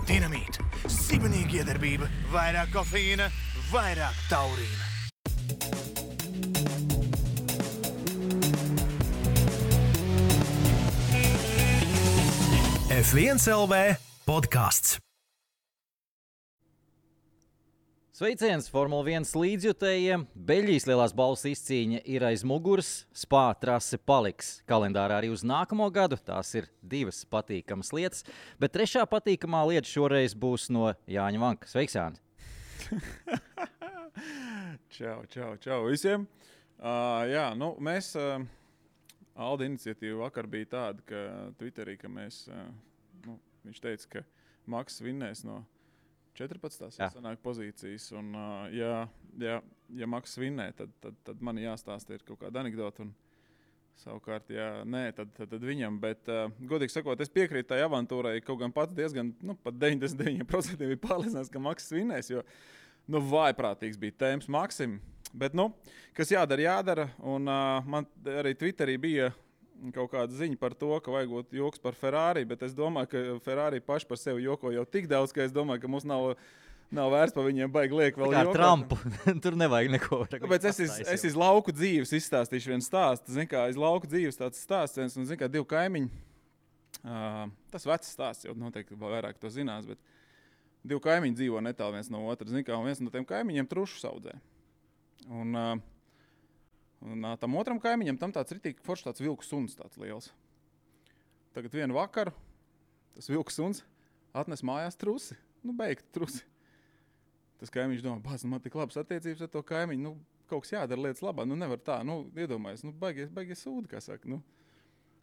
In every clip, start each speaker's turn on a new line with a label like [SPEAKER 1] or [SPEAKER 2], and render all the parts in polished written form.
[SPEAKER 1] Dinamīta, sibenīga iedarbība, vairāk kofeīna, vairāk taurīna. F1 LV podcasts.
[SPEAKER 2] Sveiciens Formula 1 līdzjutējiem. Beļģijas lielās balvas izcīņa ir aiz muguras, Spā trase paliks kalendārā arī uz nākamo gadu. Tās ir divas patīkamas lietas, bet trešā patīkamā lieta šoreiz būs no Jāņa Vanka. Sveiks, Jāni!
[SPEAKER 3] Čau visiem! Mēs, Alda iniciatīva vakar bija tāda, ka Twitterī, ka mēs, viņš teica, ka Maks vinnēs no 14. sanāk pozīcijas, un ja Maks vinnē, tad man jāstāsta ir kaut kāda anekdota, un savukārt, ja nē, tad viņam, bet, godīgi sakot, es piekrītu tai avantūrai, kaut gan pats diezgan, pat 99% bija pārliecinās, ka Maks vinnēs, jo, vājprātīgs bija tēmas Maksim, bet, kas jādara, un man arī Twitterī bija kaut kāda ziņa par to, ka vajagot joks par Ferrari, bet es domāju, ka Ferrari paši par sevi joko jau tik daudz, ka es domāju, ka mums nav vērts par viņiem baigi liek vēl jokot.
[SPEAKER 2] Kā ar Trumpu, tur nevajag neko.
[SPEAKER 3] Tāpēc es iz lauku dzīves izstāstīšu vienu stāstu. Zin kā, iz lauku dzīves tāds stāsts, un zin kā, divi kaimiņi, tas vecs stāsts, jau noteikti vairāk to zinās, bet divi kaimiņi dzīvo netālu viens no otra. Zin kā, un viens no tiem kaimiņiem trušu saudzē. Un tam otram kaimiņam tam tāds ritīgi foršs tāds vilku suns tāds liels. Tagad vienu vakaru tas vilku suns atnes mājās trusi. Beigti trusi. Tas kaimiņš domā, man tik labas attiecības ar to kaimiņu, kaut kas jādara lietas labā, nevar tā, iedomājies, baigies sūdi, kā saka,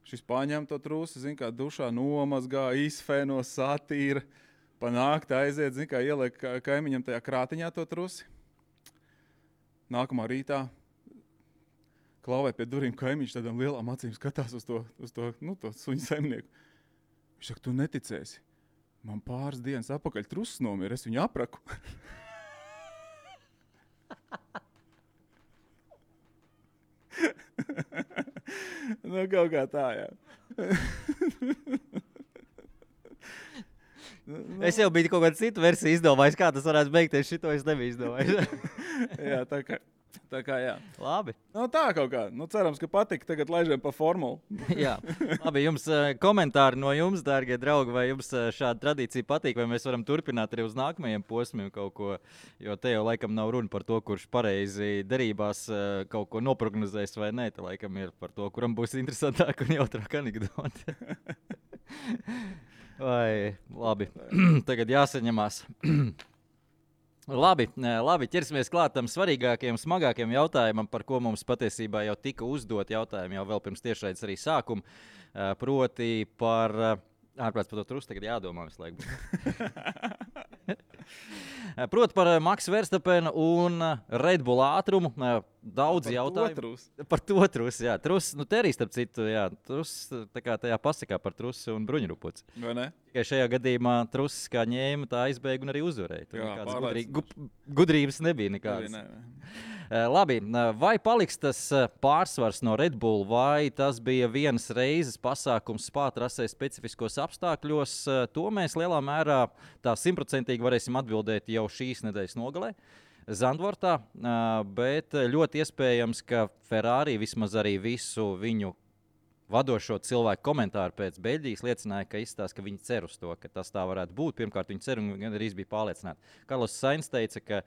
[SPEAKER 3] Šis paņem to trusi, zin kā, dušā nomazgā, izfēno, satīra, pa nakti aiziet, zin kā, ieliek kaimiņam tajā krātiņā to trusi. Nākamā rītā klauvē pie durīm kaimiņš tādām lielām acīm skatās uz to suņu saimnieku. Viņš saka, tu neticēsi. Man pāris dienas apakaļ trusis nomira, es viņu apraku. Kaut kā tā, jā.
[SPEAKER 2] Es jau biju kaut kādu citu versiju izdomājis, kā tas varētu beigties, šito es nebiju izdomājis.
[SPEAKER 3] Jā, tā kā jā.
[SPEAKER 2] Labi.
[SPEAKER 3] Tā kaut kā. Cerams, ka patika. Tagad laižam pa formulu.
[SPEAKER 2] Jā. Labi, jums komentāri no jums, dārgie draugi, vai jums šāda tradīcija patīk, vai mēs varam turpināt arī uz nākamajiem posmiem kaut ko, jo te jau laikam nav runa par to, kurš pareizi derībās kaut ko noprognozēs vai nē, te laikam ir par to, kuram būs interesantāk un jautrāk anekdote. Vai, labi. Tagad jāsaņemās. Labi, ķersimies klāt tam svarīgākajam, smagākajam jautājumam, par ko mums patiesībā jau tika uzdot jautājumi jau vēl pirms tiešraides arī sākuma, proti par, ārprāts par to trusu tagad jādomā visu laiku. Proti par Maksu Verstapenu un Red Bull ātrumu. Daudz jautājumu. Par to trusu, jā. Trus, te arī starp citu, jā. Trus, tā kā tajā pasakā par trusu un bruņurupuci.
[SPEAKER 3] Vai ne?
[SPEAKER 2] Tikai šajā gadījumā trusis kā ņēma, tā aizbēga un arī uzvarēja. Tur nekādas gudrības nebija nekādas. Labi, vai paliks tas pārsvars no Red Bull, vai tas bija vienas reizes pasākums Spā trasē specifiskos apstākļos? To mēs lielā mērā tā 100% varēsim atbildēt jau šīs nedēļas nogalē. Zandvortā, bet ļoti iespējams, ka Ferrari vismaz arī visu viņu vadošo cilvēku komentāru pēc Beļģijas liecināja, ka izstāsta, ka viņi cer uz to, ka tas tā varētu būt. Pirmkārt, viņi cer un arī bija pārliecināti. Karlos Sainz teica, ka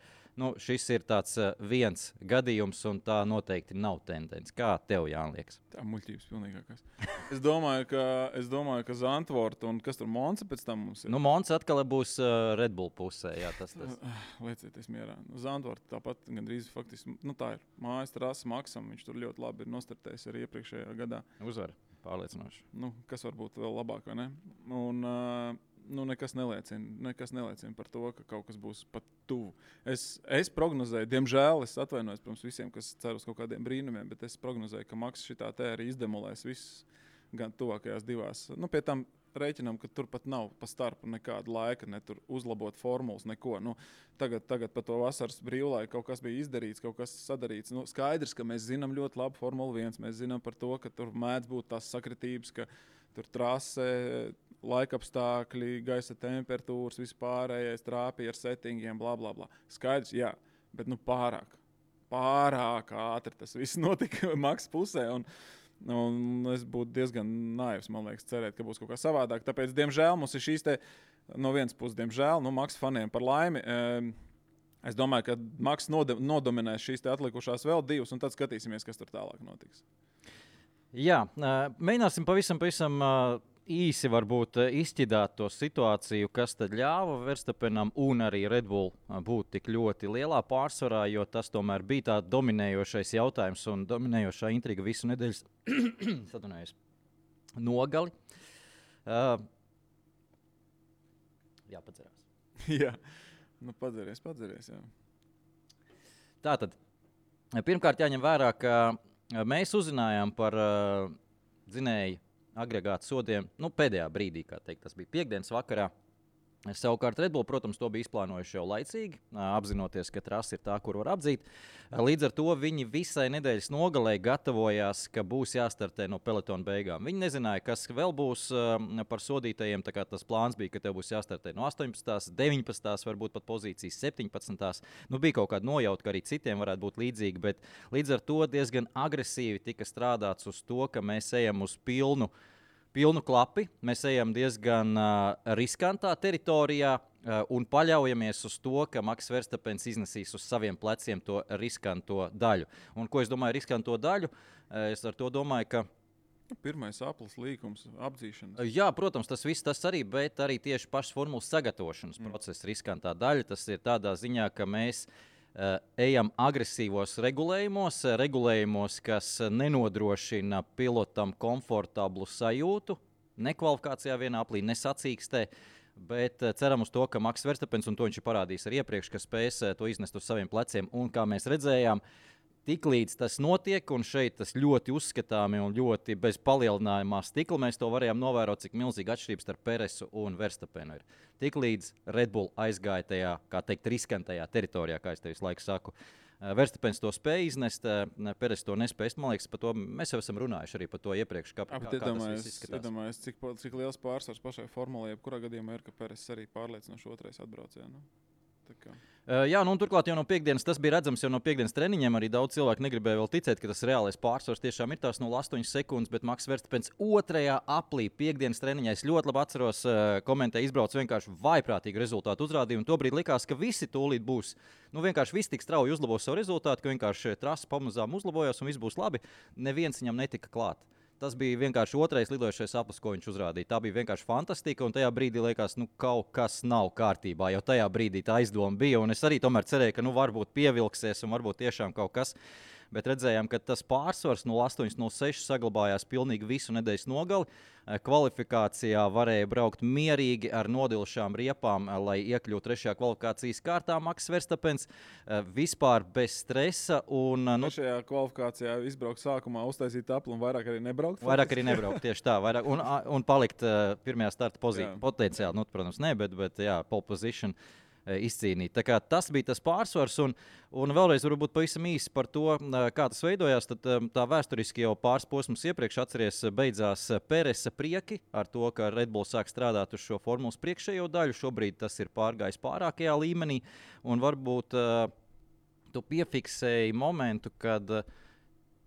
[SPEAKER 2] šis ir tāds viens gadījums un tā noteikti nav tendence. Kā tev, Jāni, liekas?
[SPEAKER 3] Tā muļķības pilnīgākās. Es domāju, ka Zandvoort un kas tur Monza pēc tam mums ir?
[SPEAKER 2] Monza atkal būs Red Bull pusē. Jā, tas.
[SPEAKER 3] Liecieties mierā. Zandvoort tāpat gandrīz faktiski, tā ir mājas trasa Maksam. Viņš tur ļoti labi ir nostartējis arī iepriekšējā gadā.
[SPEAKER 2] Uzvar, pārliecinoši.
[SPEAKER 3] Kas var būt vēl labāk, vai ne? Un nekas neliecina par to, ka kaut kas būs pat tuvu. Es prognozēju, diemžēl, es atvainojos, protams, visiem, kas cer uz kaut kādiem brīnumiem, bet es prognozēju, ka Maks šitā te arī izdemolēs visus gan tuvākajās divās. Pie tam rēķinām, ka tur pat nav pa starpu nekāda laika, ne tur uzlabot formulas, neko. Tagad pa to vasaras brīvlaiku kaut kas bija izdarīts, kaut kas sadarīts. Skaidrs, ka mēs zinām ļoti labu Formula 1. Mēs zinām par to, ka tur mēdz būt tās sakritības, ka tur trase, laikapstākļi, gaisa temperatūras, vispārējais trāpīja ar settingiem, bla, bla, bla. Skaidrs, jā, bet pārāk ātri tas viss notika Maks pusē. Un es būtu diezgan naivs, man liekas, cerēt, ka būs kaut kā savādāk. Tāpēc, diemžēl, mums ir šīs te, no vienas puses, diemžēl, Maks faniem par laimi. Es domāju, ka Maks nodominēs šīs te atlikušās vēl divas, un tad skatīsimies, kas tur tālāk notiks.
[SPEAKER 2] Jā, mēģināsim pavisam īsi varbūt izķidāt to situāciju, kas tad ļāva Verstappenam un arī Red Bull būt tik ļoti lielā pārsvarā, jo tas tomēr bija tā dominējošais jautājums un dominējošā intriga visu nedēļas nogali. Jā, padzerās.
[SPEAKER 3] Jā, padzeries, jā.
[SPEAKER 2] Tātad, pirmkārt jāņem vērā, ka mēs uzzinājām par dzinēju agregātu sodiem, pēdējā brīdī, kā teikt, tas bija piekdienas vakarā. Savukārt Red Bull, protams, to bija izplānojuši jau laicīgi, apzinoties, ka trasa ir tā, kur var apdzīt. Līdz ar to viņi visai nedēļas nogalē gatavojās, ka būs jāstartē no pelotona beigām. Viņi nezināja, kas vēl būs par sodītajiem, tā kā tas plāns bija, ka tev būs jāstartē no 18, 19, varbūt pat pozīcijas 17. Bija kaut kāda nojauta, ka arī citiem varētu būt līdzīgi, bet līdz ar to diezgan agresīvi tika strādāts uz to, ka mēs ejam uz pilnu klapi, mēs ejam diezgan riskantā teritorijā un paļaujamies uz to, ka Maks Verstappens iznesīs uz saviem pleciem to riskanto daļu. Un ko es domāju riskanto daļu? Es ar to domāju, ka
[SPEAKER 3] pirmais aplis līkums, apdzīšanas.
[SPEAKER 2] Jā, protams, tas viss tas arī, bet arī tieši pašas formulas sagatavošanas procesa riskantā daļa. Tas ir tādā ziņā, ka mēs ejam agresīvos regulējumos, kas nenodrošina pilotam komfortablu sajūtu, ne kvalifikācijā vienā aplī, ne sacīkstē, bet ceram uz to, ka Maks Verstappens, un to viņš ir parādījis arī iepriekš, ka spēs to iznest uz saviem pleciem, un kā mēs redzējām, tiklīdz tas notiek, un šeit tas ļoti uzskatāmi un ļoti bez palielinājumā stikla, mēs to varējām novērot, cik milzīga atšķirības starp Peresu un Verstappenu ir. Tiklīdz Red Bull aizgāja tajā, kā teikt, riskantajā teritorijā, kā es tev visu laiku saku. Verstappens to spēja iznest, Peres to nespēja. Man liekas, par to mēs jau esam runājuši arī par to iepriekš. Kā tas viss izskatās?
[SPEAKER 3] Iedomājies, cik liels pārsvars pašai formulē, jebkurā gadījumā ir, ka Peres arī pārliecinoši otrais atbraucējā.
[SPEAKER 2] Jā, un turklāt jau no piekdienas tas bija redzams, jau no piekdienas treniņiem arī daudz cilvēku negribēja vēl ticēt, ka tas reālais pārsvars tiešām ir tās 0,8 sekundes, bet Maks Verstappens otrajā aplī piekdienas treniņā, es ļoti labi atceros, komentēja izbrauc vienkārši vaiprātīgu rezultātu uzrādījumu, un tobrīd likās, ka visi tūlīt būs, vienkārši visi tik strauji uzlabos savu rezultātu, ka vienkārši trasa pamazām uzlabojās un viss būs labi, neviens viņam netika klāt. Tas bija vienkārši otrais lidojošais aplis, ko viņš uzrādīja. Tā bija vienkārši fantastika, un tajā brīdī liekas, kaut kas nav kārtībā. Jau tajā brīdī tā aizdoma bija, un es arī tomēr cerēju, ka varbūt pievilksies un varbūt tiešām kaut kas. Bet redzējām, ka tas pārsvars 0,8-0,6 saglabājās pilnīgi visu nedēļas nogali. Kvalifikācijā varēja braukt mierīgi ar nodilšām riepām, lai iekļūtu trešajā kvalifikācijas kārtā. Maks Verstappens vispār bez stresa.
[SPEAKER 3] Trešajā kvalifikācijā izbraukt sākumā, uztaisīt apli un vairāk arī nebraukt?
[SPEAKER 2] Vairāk arī nebraukt, tieši tā. Un palikt pirmajā starta pozīcijā. Potenciāli, protams, ne, bet jā, pole position. Izcīnīt. Tā kā tas bija tas pārsvars, un vēlreiz varbūt pavisam īsi par to, kā tas veidojās. Tad tā vēsturiski jau pāris posmus iepriekš atceries beidzās Peresa prieki ar to, ka Red Bull sāk strādāt uz šo formulas priekšējo daļu. Šobrīd tas ir pārgājis pārākajā līmenī, un varbūt tu piefiksēji momentu, kad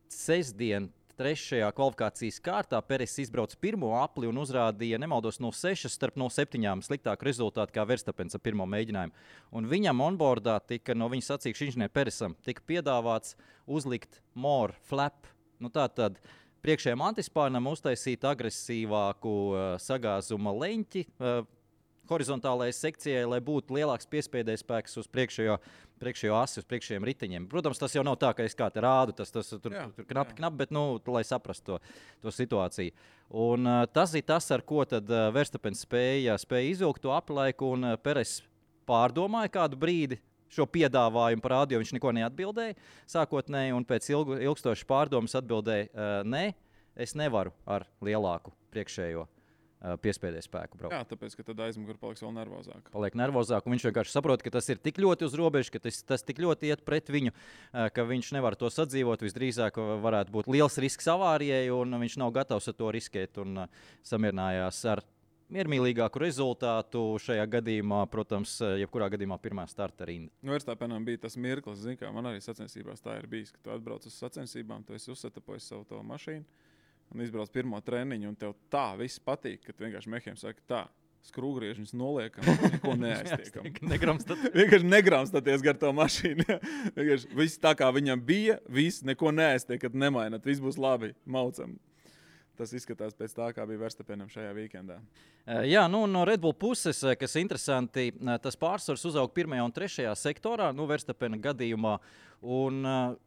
[SPEAKER 2] sestdien trešajā kvalifikācijas kārtā Peres izbrauca pirmo apli un uzrādīja, nemaldos, 0,6 starp 0,7 sliktāku rezultātu kā Verstapens ar pirmo mēģinājumu. Un viņam onboardā tika no viņa sacīkšu inženieru Peresam tika piedāvāts uzlikt more flap. Nu, tātad priekšējiem antispārnam uztaisīt agresīvāku sagāzuma leņķi horizontālajai sekcijai, lai būtu lielāks piespēdējs spēks uz priekšējo asi, uz priekšējiem riteņiem. Protams, tas jau nav tā, ka es kā te rādu, tas tur knapi, bet, lai saprastu to situāciju. Un tas ir tas, ar ko tad Verstapens spēja izvilkt to aplaiku, un Peres pārdomāja kādu brīdi šo piedāvājumu par rādio, viņš neko neatbildēja sākotnēji, un pēc ilgstošas pārdomas atbildēja, nē, es nevaru ar lielāku priekšējo piespēdēju spēku braukt.
[SPEAKER 3] Jā, tāpēc, ka tad aizmugure paliks vēl nervozāk.
[SPEAKER 2] Paliek nervozāk, un viņš vienkārši saprot, ka tas ir tik ļoti uz robežas, ka tas tik ļoti iet pret viņu, ka viņš nevar to sadzīvot. Visdrīzāk varētu būt liels risks avārijai, un viņš nav gatavs ar to riskēt, un samierinājās ar miermīlīgāku rezultātu šajā gadījumā, protams, jebkurā gadījumā pirmā starta rinda.
[SPEAKER 3] Nu, Verstapenam bija tas mirklis, zin, kā man arī sacensībās tā ir bijis, ka tu atbrauc uz sacensībām, tu esi uzsetapojis savu to mašīnu un izbrauc pirmo treniņu, un tev tā viss patīk, ka tu vienkārši mehiem saki tā, skrūgriežņus noliekam, neko neaiztiekam. Vienkārši negramstaties gar to mašīnu. Vienkārši viss tā, kā viņam bija, viss neko neaiztiekat, nemainat, viss būs labi, maucam. Tas izskatās pēc tā, kā bija Verstapenam šajā weekendā.
[SPEAKER 2] Jā, nu, no Red Bull puses, kas interesanti, tas pārsvars uzauga 1. un 3. sektorā, Verstapena gadījumā. Un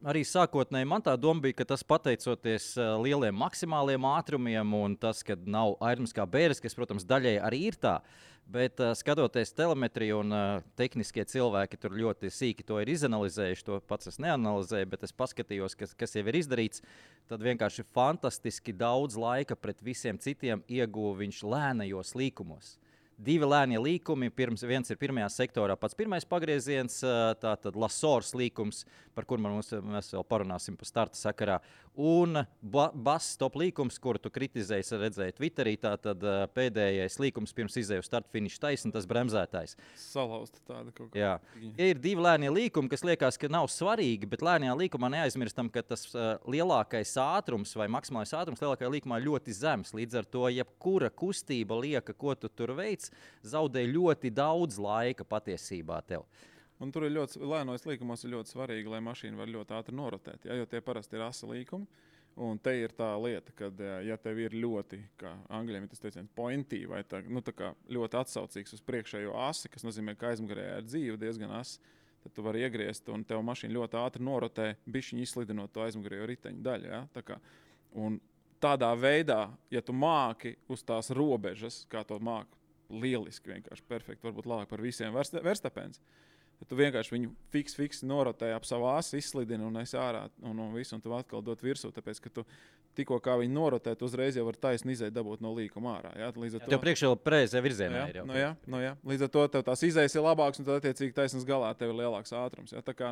[SPEAKER 2] arī sākotnēji man tā doma bija, ka tas pateicoties lieliem maksimāliem ātrumiem un tas, ka nav airums kā bēres, kas, protams, daļai arī ir tā. Bet skatoties telemetriju un tehniskie cilvēki tur ļoti sīki to ir izanalizējuši, to pats es neanalizēju, bet es paskatījos, kas jau ir izdarīts, tad vienkārši fantastiski daudz laika pret visiem citiem ieguva viņš lēnajos līkumos. 2 lēnie līkumi, viens ir 1. sektorā pats pirmais pagrieziens, tātad Lasors līkums, par kur mēs vēl parunāsim pa starta sakarā, un Bass top līkums, kuru tu kritizēji, redzēji Twitterī, tātad pēdējais līkums pirms izēju start finish taisni, tas bremzētājs.
[SPEAKER 3] Salauzta tāda kaut kā.
[SPEAKER 2] Jā. Ir 2 lēnie līkumi, kas liekas, ka nav svarīgi, bet lēnajā līkumā neaizmirstam, ka tas lielākais ātrums vai maksimālais ātrums lielākajā līkumā ļoti zems. Līdz ar to, jebkura kustība lieka, ko tu tur veic, zaudē ļoti daudz laika patiesībā tev.
[SPEAKER 3] Un tur ir ļoti, lēnos līkumos ir ļoti svarīgi, lai mašīna var ļoti ātri norotēt, jo tie parasti ir asa līkumi. Un te ir tā lieta, ka, ja tev ir ļoti, kā angļiem ir tas teiciens, pointy, vai tā, tā kā ļoti atsaucīgs uz priekšējo asi, kas nozīmē, ka aizmugurē ir dzīve diezgan asa, tad tu vari iegriezt un tev mašīna ļoti ātri norotē, bišķiņi izslidinot to aizmugurējo riteņu daļu. Ja? Tā kā, un tādā veidā, ja tu māki uz tās robežas, kā to māki, lieliski, vienkārši perfekti, varbūt labāk par visiem Verstapens. Tad tu vienkārši viņu fiks norotē ap savu asi, izslidini un esi ārā un visu, un tu atkal dot virsū, tāpēc, ka tu tikko kā viņu norotē, tu uzreiz jau var taisni izēt dabūt no līkuma ārā. Ja?
[SPEAKER 2] Tev priekšā vēl pareizajā virzienā ir jau.
[SPEAKER 3] Jā. Līdz ar to tev tās izējas ir labāks, un tad attiecīgi taisnas galā tev ir lielāks ātrums. Ja? Tā kā,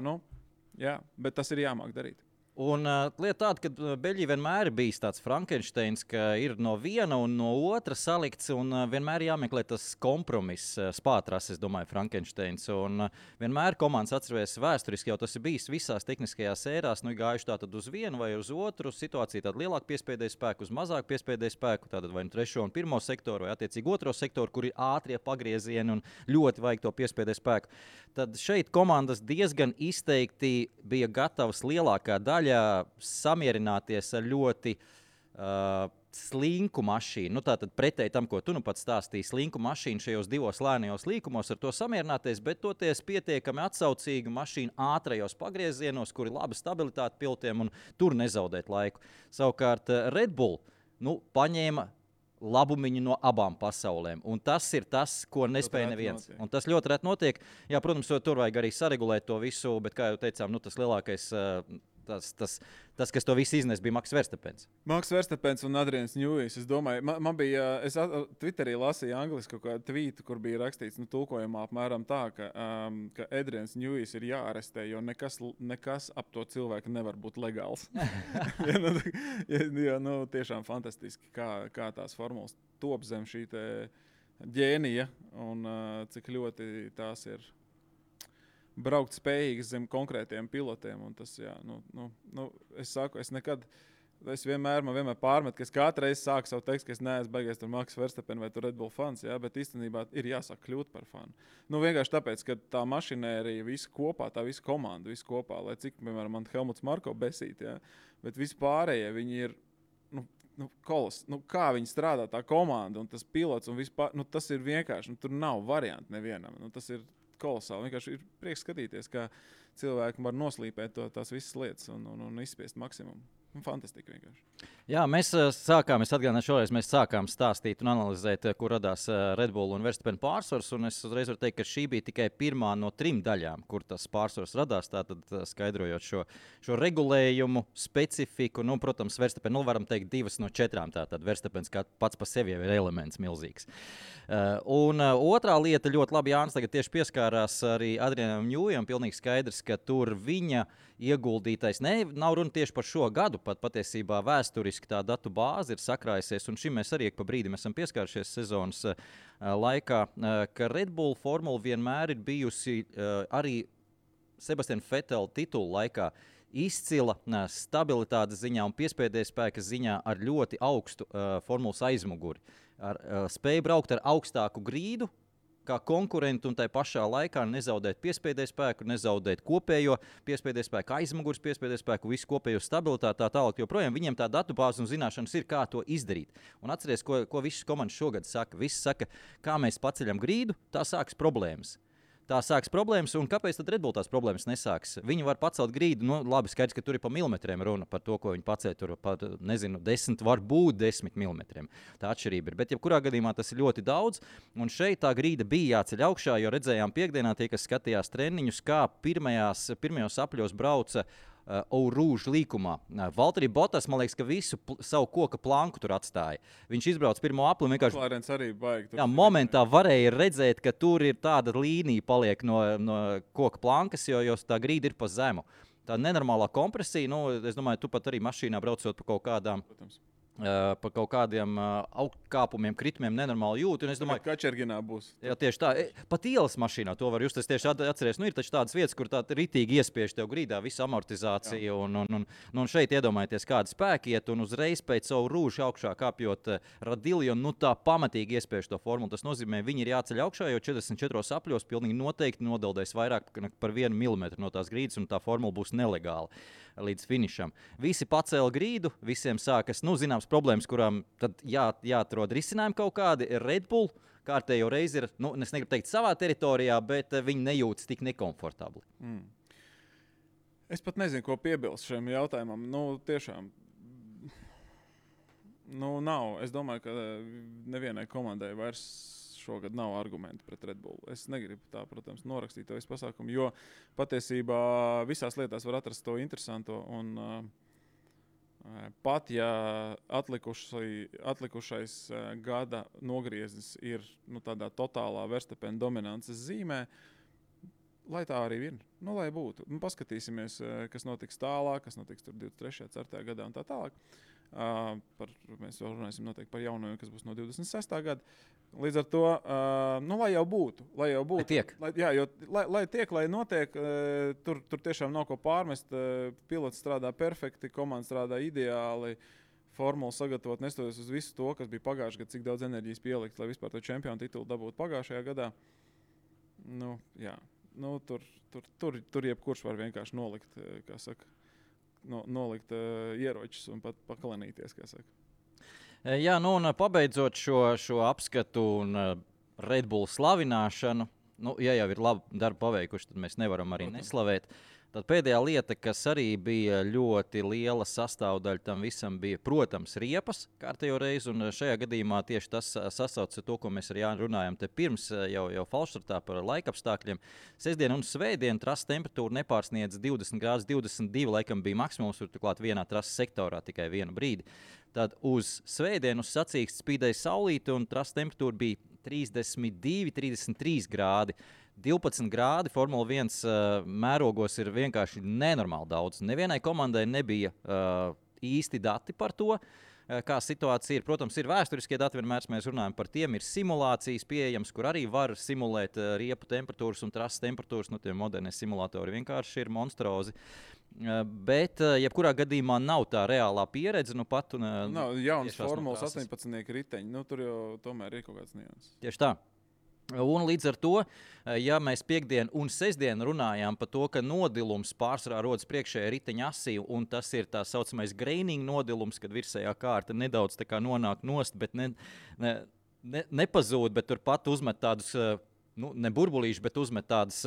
[SPEAKER 3] jā, bet tas ir jāmāk darīt.
[SPEAKER 2] Un lieta tāda, ka Beļģija vienmēr ir bijis tāds Frankensteins, ka ir no viena un no otra salikts, un vienmēr jāmeklē tas kompromiss, spātras, es domāju, Frankensteins. Un vienmēr komandas atceries vēsturiski, jau tas ir bijis visās tehniskajās ērās, gājuši tātad uz vienu vai uz otru situāciju, tādu lielāku piespēdēju spēku, uz mazāku piespēdēju spēku, tātad vai 3. un 1. sektoru, vai attiecīgi 2. sektoru, kur ir ātrie pagriezieni un ļoti vajag to piespēdēju spēku. Tad šeit komandas diezgan izteikti bija gatavas lielākā daļa samierināties ar ļoti slinku mašīnu. Tātad pretēji tam, ko tu pats stāstīji, slinku mašīnu šajos 2 lēnajos līkumos, ar to samierināties, bet toties pietiekami atsaucīgu mašīnu ātrajos pagriezienos, kur ir laba stabilitāte pilotiem un tur nezaudēt laiku. Savukārt Red Bull paņēma labumiņu no abām pasaulēm. Un tas ir tas, ko nespēja neviens. Un tas ļoti reti notiek. Jā, protams, tur vajag arī saregulēt to visu, bet, kā jau teicām, tas lielākais, tas, kas to visu iznes, bija Maks Verstapens.
[SPEAKER 3] Maks Verstapens un Adrians Newijs. Es domāju, man bija, es Twitterī lasīju angliski kaut kādu tvītu, kur bija rakstīts, tulkojumā apmēram tā, ka Adrians Newijs ir jāarestē, jo nekas ap to cilvēku nevar būt legāls. Tiešām fantastiski, kā tās formulas top zem šī te ģēnija un cik ļoti tās ir braukt spējīgas zem konkrētiem pilotiem. Un tas, jā, es saku, es nekad man vienmēr pārmet, ka es katru reizi sāku savu tekstu, ka es neesmu baigies tur Max Verstappen vai tur Red Bull fans, jā, bet īstenībā ir jāsāk kļūt par fanu. Nu, vienkārši tāpēc, ka tā mašinērija visa kopā, tā visa komanda visa kopā, lai cik, piemēram, man Helmuts Marko besīt, jā, bet visi pārējie, viņi ir, kā viņi strādā tā komanda un tas pilots un vispār, tas ir vienkārši, tur nav variantu nevienam, tas ir kolosāli, vienkārši ir prieks skatīties, kā cilvēki var noslīpēt tās visas lietas un izspiest maksimumu. Fantastiski vienkārši.
[SPEAKER 2] Jā, mēs atgādināšu šoreiz, mēs sākām stāstīt un analizēt, kur radās Red Bull un Verstappen pārsvars, un es uzreiz varu teikt, ka šī bija tikai pirmā no 3 daļām, kur tas pārsvars radās, tātad skaidrojot šo regulējumu, specifiku, protams, Verstappen, varam teikt 2 no 4, tātad Verstappens kā pats pa sevi ir elements milzīgs. Un otrā lieta ļoti labi Jānis tagad tieši pieskārās arī Adrianam Ņūjam, pilnīgi skaidrs, ka tur viņa ieguldītais, nav runa tieši par šo gadu, pat patiesībā vēsturiski tā datu bāze ir sakrājusies, un šim mēs arī pa brīdim esam pieskārušies sezonas laikā, ka Red Bull formula vienmēr ir bijusi arī Sebastiana Vettel titulu laikā izcila stabilitātes ziņā un piespēdējas spēka ziņā ar ļoti augstu formulas aizmuguri. Spēja braukt ar augstāku grīdu, kā konkurenti un tai pašā laikā nezaudēt piespēdēju spēku, nezaudēt kopējo piespēdēju spēku, aizmugures piespēdēju spēku, visu kopējo stabilitāti, tā tālāk, joprojām viņiem tā datubāze un zināšanas ir, kā to izdarīt. Un atceries, ko visas komandas šogad saka. Visi saka, kā mēs paceļam grīdu, tā sāks problēmas. Un kāpēc tad Red Bull tās problēmas nesāks? Viņi var pacelt grīdu, labi, skaidrs, ka tur ir pa milimetriem runa par to, ko viņi paceļ, tur par, 10, varbūt 10 milimetriem. Tā atšķirība ir, bet jebkurā gadījumā tas ir ļoti daudz, un šeit tā grīda bija jāceļ augšā, jo redzējām piekdienā tie, kas skatījās treniņus, kā pirmajos apļos brauca Rouge līkumā. Valtteri Bottas, man liekas, ka visu savu koka planku tur atstāja. Viņš izbrauc pirmo apli un vienkārši...
[SPEAKER 3] Klārens arī baigi.
[SPEAKER 2] Jā, momentā varēja redzēt, ka tur ir tāda līnija paliek no koka plankas, jo tā grīda ir pa zemu. Tā nenormālā kompresija, es domāju, tu pat arī mašīnā braucot pa kaut kādiem augkāpumiem, kritumiem nenormāli jūti. Un es domāju,
[SPEAKER 3] ka Kačerginā būs.
[SPEAKER 2] Jā, tieši tā. Pat ielas mašīnā to var just. Es tieši atceries, ir taču tādas vietas, kur tā ritīgi iespiež tev grīdā visu amortizāciju. Un šeit iedomājieties, kāda spēka iet un uzreiz pēc savu rūžu augšā kāpjot radili, un tā pamatīgi iespiež to formulu. Tas nozīmē, viņi ir jāceļ augšā, jo 44 apļos pilnīgi noteikti nodeldēs vairāk par 1 milimetru no tās grīdas, un tā formula būs nelegāla līdz finišam. Visi pacēla grīdu, visiem sākas, zināms problēmas, kurām tad jāatrod risinājumi kaut kādi. Red Bull kārtējo reizi ir, es negribu teikt savā teritorijā, bet viņi nejūtas tik nekomfortabli.
[SPEAKER 3] Es pat nezinu, ko piebilst šiem jautājumam. Tiešām, nav. Es domāju, ka nevienai komandai vairs šogad nav argumenti pret Red Bull. Es negribu tā, protams, norakstīt to visu pasākumu, jo patiesībā visās lietās var atrast to interesanto. Un pat, ja atlikušais gada nogrieznis ir tādā totālā Verstappen dominances zīmē, lai tā arī ir. Lai būtu. Paskatīsimies, kas notiks tālāk, kas notiks 23. 4. gadā un tā tālāk. Mēs vēl runāsim noteikti par jaunajiem, kas būs no 26. gada. Līdz ar to, lai jau būtu. Lai
[SPEAKER 2] tiek.
[SPEAKER 3] Lai tiek, lai notiek, tur tiešām nav ko pārmest. Pilots strādā perfekti, komanda strādā ideāli, formulu sagatavot, nestoties uz visu to, kas bija pagājušajā gadā, cik daudz enerģijas pielikt, lai vispār to čempionu titulu dabūtu pagājušajā gadā. Tur jebkurš var vienkārši nolikt, kā saka, nolikt ieročus un pat pakalanīties, kā saka.
[SPEAKER 2] Jā, un pabeidzot šo apskatu un Red Bull slavināšanu, ja jau ir labi darbu paveikuši, tad mēs nevaram arī neslavēt. Tad pēdējā lieta, kas arī bija ļoti liela sastāvdaļa tam visam, bija, protams, riepas kārtējo reizi, un šajā gadījumā tieši tas sasaucas ar to, ko mēs ar Jāni runājam te pirms jau falšstartā par laikapstākļiem. Sestdien un svētdien trases temperatūra nepārsniedz 20 grādus, 22 laikam bija maksimums, tur turklāt vienā trases sektorā tikai vienu brīdi. Tad uz svētdienu uz sacīksts spīdēja saulīte, un trases temperatūra bija 32, 33 grādi. 12 grādi Formula 1 mērogos ir vienkārši nenormāli daudz. Nevienai komandai nebija īsti dati par to. kā situācija ir. Protams, ir vēsturiskie dati, vienmēr mēs runājam par tiem. Ir simulācijas pieejams, kur arī var simulēt riepu temperatūras un trases temperatūras. Tie modernie simulatori vienkārši ir monstrozi. Bet, jebkurā gadījumā, nav tā reālā pieredze. Pat
[SPEAKER 3] nav jaunas formulas 18 riteņi. Tur jau tomēr ir kaut kāds nianses.
[SPEAKER 2] Tieši tā. Un līdz ar to, ja mēs piekdienu un sestdienu runājām par to, ka nodilums pārsvarā rodas priekšējā riteņa asī, un tas ir tā saucamais graining nodilums, kad virsējā kārta nedaudz tā kā nonāk nost, bet nepazūd, bet turpat uzmet tādus, ne burbulīšus, bet uzmet tādus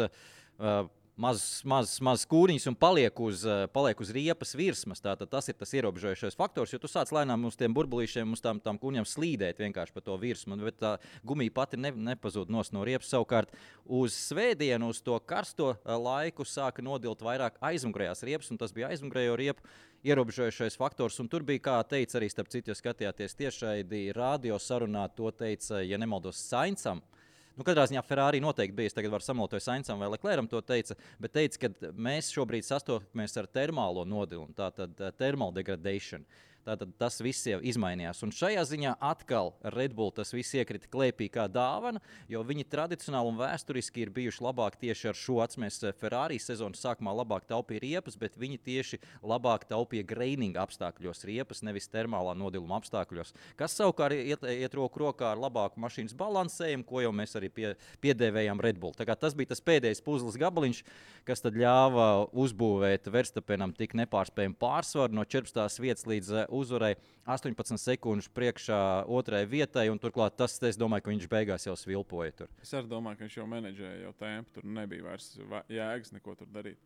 [SPEAKER 2] mazas kūriņas un paliek uz riepas virsmas. Tātad tas ir tas ierobežojošais faktors, jo tu sāc lēnām uz tiem burbulīšiem, uz tām kūriņām slīdēt vienkārši pa to virsmu, bet tā gumija pati nepazūd no riepas. Savukārt uz svētdienu, uz to karsto laiku sāka nodilt vairāk aizmugurējās riepas, un tas bija aizmugurējo riepu ierobežojošais faktors, un tur bija, kā teica arī, starp citu, ja skatījāties tiešraidi radio sarunā, to teica, ja nemaldos, Saincam. Katrā ziņā Ferrari noteikti bija. Es tagad varu samalot Saincam vai Lecleram to teica, bet teica, ka mēs šobrīd sastopamies ar termālo nodilumu, tātad thermal degradation. Tātad tas viss jau izmainījās. Un šajā ziņā atkal Red Bull tas viss iekrita klēpī kā dāvana, jo viņi tradicionāli un vēsturiski ir bijuši labāk tieši ar šo atceries Ferrari sezonas sākumā labāk taupīja riepas, bet viņi tieši labāk taupīja graining apstākļos riepas, nevis termālā nodiluma apstākļos. Kas savukārt iet roku rokā ar labāku mašīnas balansējumu, ko jau mēs arī piedēvējām Red Bull. Tā kā tas bija tas pēdējais puzles gabaliņš, kas tad ļāva uzbūvēt Verstappenam tik nepārspējumu pārsvaru no 14. vietas līdz uzvarēja 18 sekundžu priekšā otrajai vietai, un turklāt tas, es domāju, ka viņš beigās jau svilpoja tur.
[SPEAKER 3] Es arī domāju, ka viņš jau menedžēja jau tempu, tur nebija vairs jēgas neko tur darīt.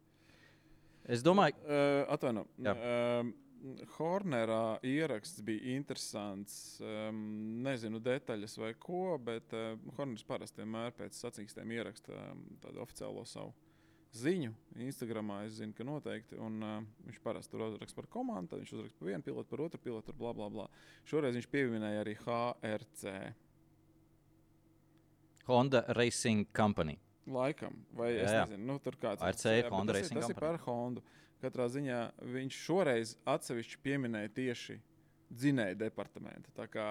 [SPEAKER 2] Es domāju...
[SPEAKER 3] Hornerā ieraksts bija interesants, nezinu detaļas vai ko, bet Horners parasti vienmēr pēc sacīkstiem ieraksta tādu oficiālo savu ziņu. Instagramā es zinu, ka noteikti, un viņš parasti tur uzraksta par komandu, tad viņš uzraksta par vienu pilotu, par otru pilotu, bla, bla, bla. Šoreiz viņš pieminēja arī HRC.
[SPEAKER 2] Honda Racing Company.
[SPEAKER 3] Laikam, vai es nezinu, tur kāds.
[SPEAKER 2] HRC ir Honda Racing Company.
[SPEAKER 3] Tas ir par Hondu. Katrā ziņā viņš šoreiz atsevišķi pieminēja tieši dzinēju departamentu. Tā kā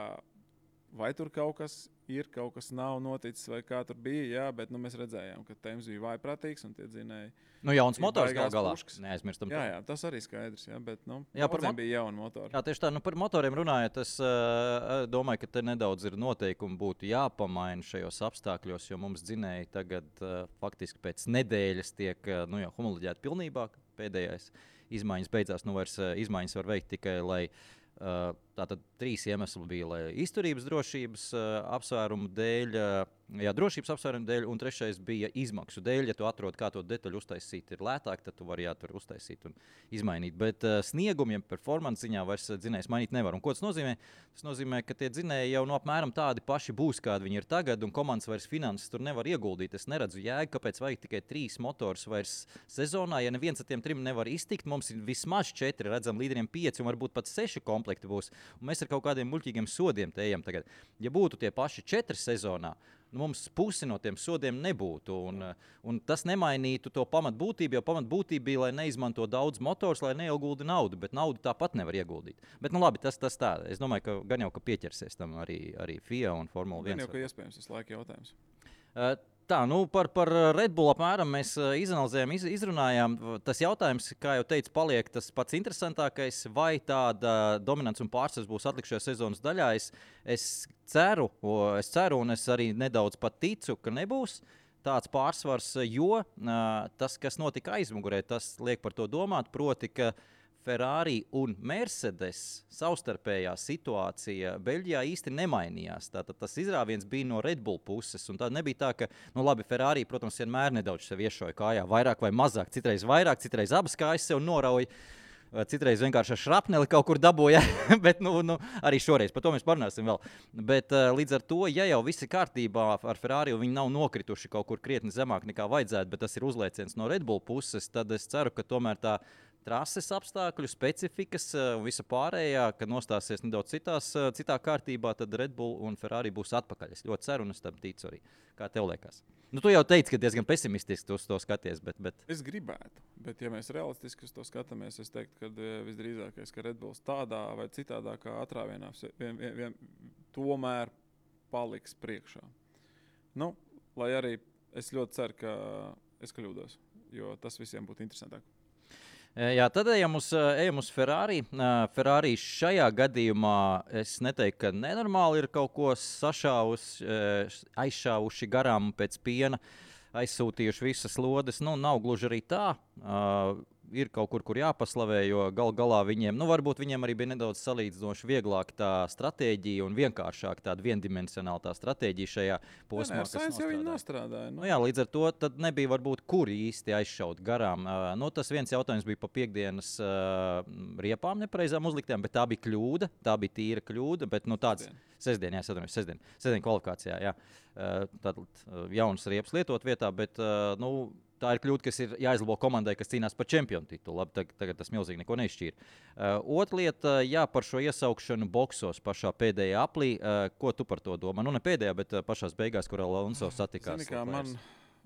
[SPEAKER 3] vai tur kaut kas ir, kaut kas nav noticis, vai kā tur bija, jā, bet mēs redzējām, ka Tēms bija vājprātīgs un tie dzinēji.
[SPEAKER 2] Jauns motors galā. Neaizmirstam.
[SPEAKER 3] Jā, tas arī skaidrs, jā, bet bija jauni motori.
[SPEAKER 2] Jā, tieši tā, par motoriem runājot, es domāju, ka te nedaudz ir noteikumi būtu jāpamaina šajos apstākļos, jo mums dzinēji tagad faktiski pēc nedēļas tiek jau homoloģēti pilnībā. Pēdējais izmaiņas beidzās, vairs izmaiņas var veikt tikai, lai tātad 3 iemesli bija, lai izturības drošības apsvērumu dēļ, drošības apsvērumu dēļ, un 3. bija izmaksu dēļ. Ja tu atrod, kā to detaļu uztaisīt, ir lētāk, tad tu vari tur uztaisīt un izmainīt. Bet sniegumiem performance ziņā vairs dzinējs mainīt nevar. Un ko tas nozīmē? Tas nozīmē, ka tie dzinēji jau apmēram tādi paši būs, kādi viņi ir tagad, un komandas vairs finanses tur nevar ieguldīt. Es neredzu jēgu, kāpēc vajag tikai 3 motors vairs sezonā. Ja neviens ar tiem 3 nevar iztikt, mums ir vismaz 4, redzam, līderiem 5 un varbūt pat 6 komplekti būs. Un mēs ar kaut kādiem muļķīgiem sodiem te ejam tagad. Ja būtu tie paši 4 sezonā, mums pusi no tiem sodiem nebūtu, un tas nemainītu to pamatbūtību, jo pamatbūtība bija, lai neizmanto daudz motors, lai neiegulda naudu, bet naudu tāpat nevar ieguldīt. Bet, labi, tas tā. Es domāju, ka gan jau, ka pieķersies tam arī FIA un Formula 1.
[SPEAKER 3] Gan jau, ka iespējams tas laika jautājums.
[SPEAKER 2] Tā, par Red Bull apmēram mēs izanalizējām, izrunājām. Tas jautājums, kā jau teicu, paliek tas pats interesantākais, vai tāda dominants un pārsvars būs atlikušajā sezonas daļā. Es ceru, un es arī nedaudz pat ticu, ka nebūs tāds pārsvars, jo tas, kas notika aizmugurē, tas liek par to domāt, proti, ka Ferrari un Mercedes savstarpējā situācija Beļģijā īsti nemainījās. Tātad tas izrāviens bija no Red Bull puses. Un tā nebija tā, ka, Ferrari, protams, vienmēr nedaudz sev iešoja kājā, vairāk vai mazāk. Citreiz vairāk, citreiz abas kājas sev norauja. Citreiz vienkārši ar šrapneli kaut kur dabūja, bet arī šoreiz, par to mēs parunāsim vēl. Bet līdz ar to, ja jau viss ir kārtībā ar Ferrari, un viņi nav nokrituši kaut kur krietni zemāk nekā vajadzētu, bet tas ir uzlieciens no Red Bull puses, tad es ceru, ka tomēr tā trases apstākļu, specifikas un visa pārējā, kad nostāsies nedaudz citā kārtībā, tad Red Bull un Ferrari būs atpakaļ. Es ļoti ceru un es tam ticu arī. Kā tev liekas? Nu, tu jau teici, ka diezgan pesimistiski uz to skaties, bet...
[SPEAKER 3] Es gribētu, bet ja mēs realistiski uz to skatāmies, es teiktu, ka visdrīzākais, ka Red Bulls tādā vai citādākā atrāvienā tomēr paliks priekšā. Nu, lai arī es ļoti ceru, ka es kļūdos, jo tas visiem būtu interesantāk.
[SPEAKER 2] Jā, tad ejam uz Ferrari. Ferrari šajā gadījumā es neteiktu, ka nenormāli ir kaut ko aizšāvuši garām pēc piena, aizsūtījuši visas lodes. Nu, nav gluži arī tā. Ir kaut kur jāpaslavē, jo galā viņiem, varbūt viņiem arī bija nedaudz salīdzinoši vieglāk tā stratēģija un vienkāršāk tāda viendimensionāla tā stratēģija šajā posmā, kas
[SPEAKER 3] nostrādāja.
[SPEAKER 2] Nu, jā, līdz ar to tad nebija varbūt kur īsti aizšaut garām. Tas viens jautājums bija pa piekdienas riepām nepareizām uzliktām, bet tā bija kļūda, tā bija tīra kļūda, bet tāds sestdien kvalifikācijā, jā. Tad jaunas riepas lietot vietā, bet tā ir kļūda, kas ir jāizlabo komandai, kas cīnās par čempionu titulu. Labi, tagad tas milzīgi neko neizšķīra. Otra lieta, par šo iesaukšanu boksos pašā pēdējā aplī. Ko tu par to domā? Nu, ne pēdējā, bet pašās beigās, kur Alonso satikās.
[SPEAKER 3] Zini, kā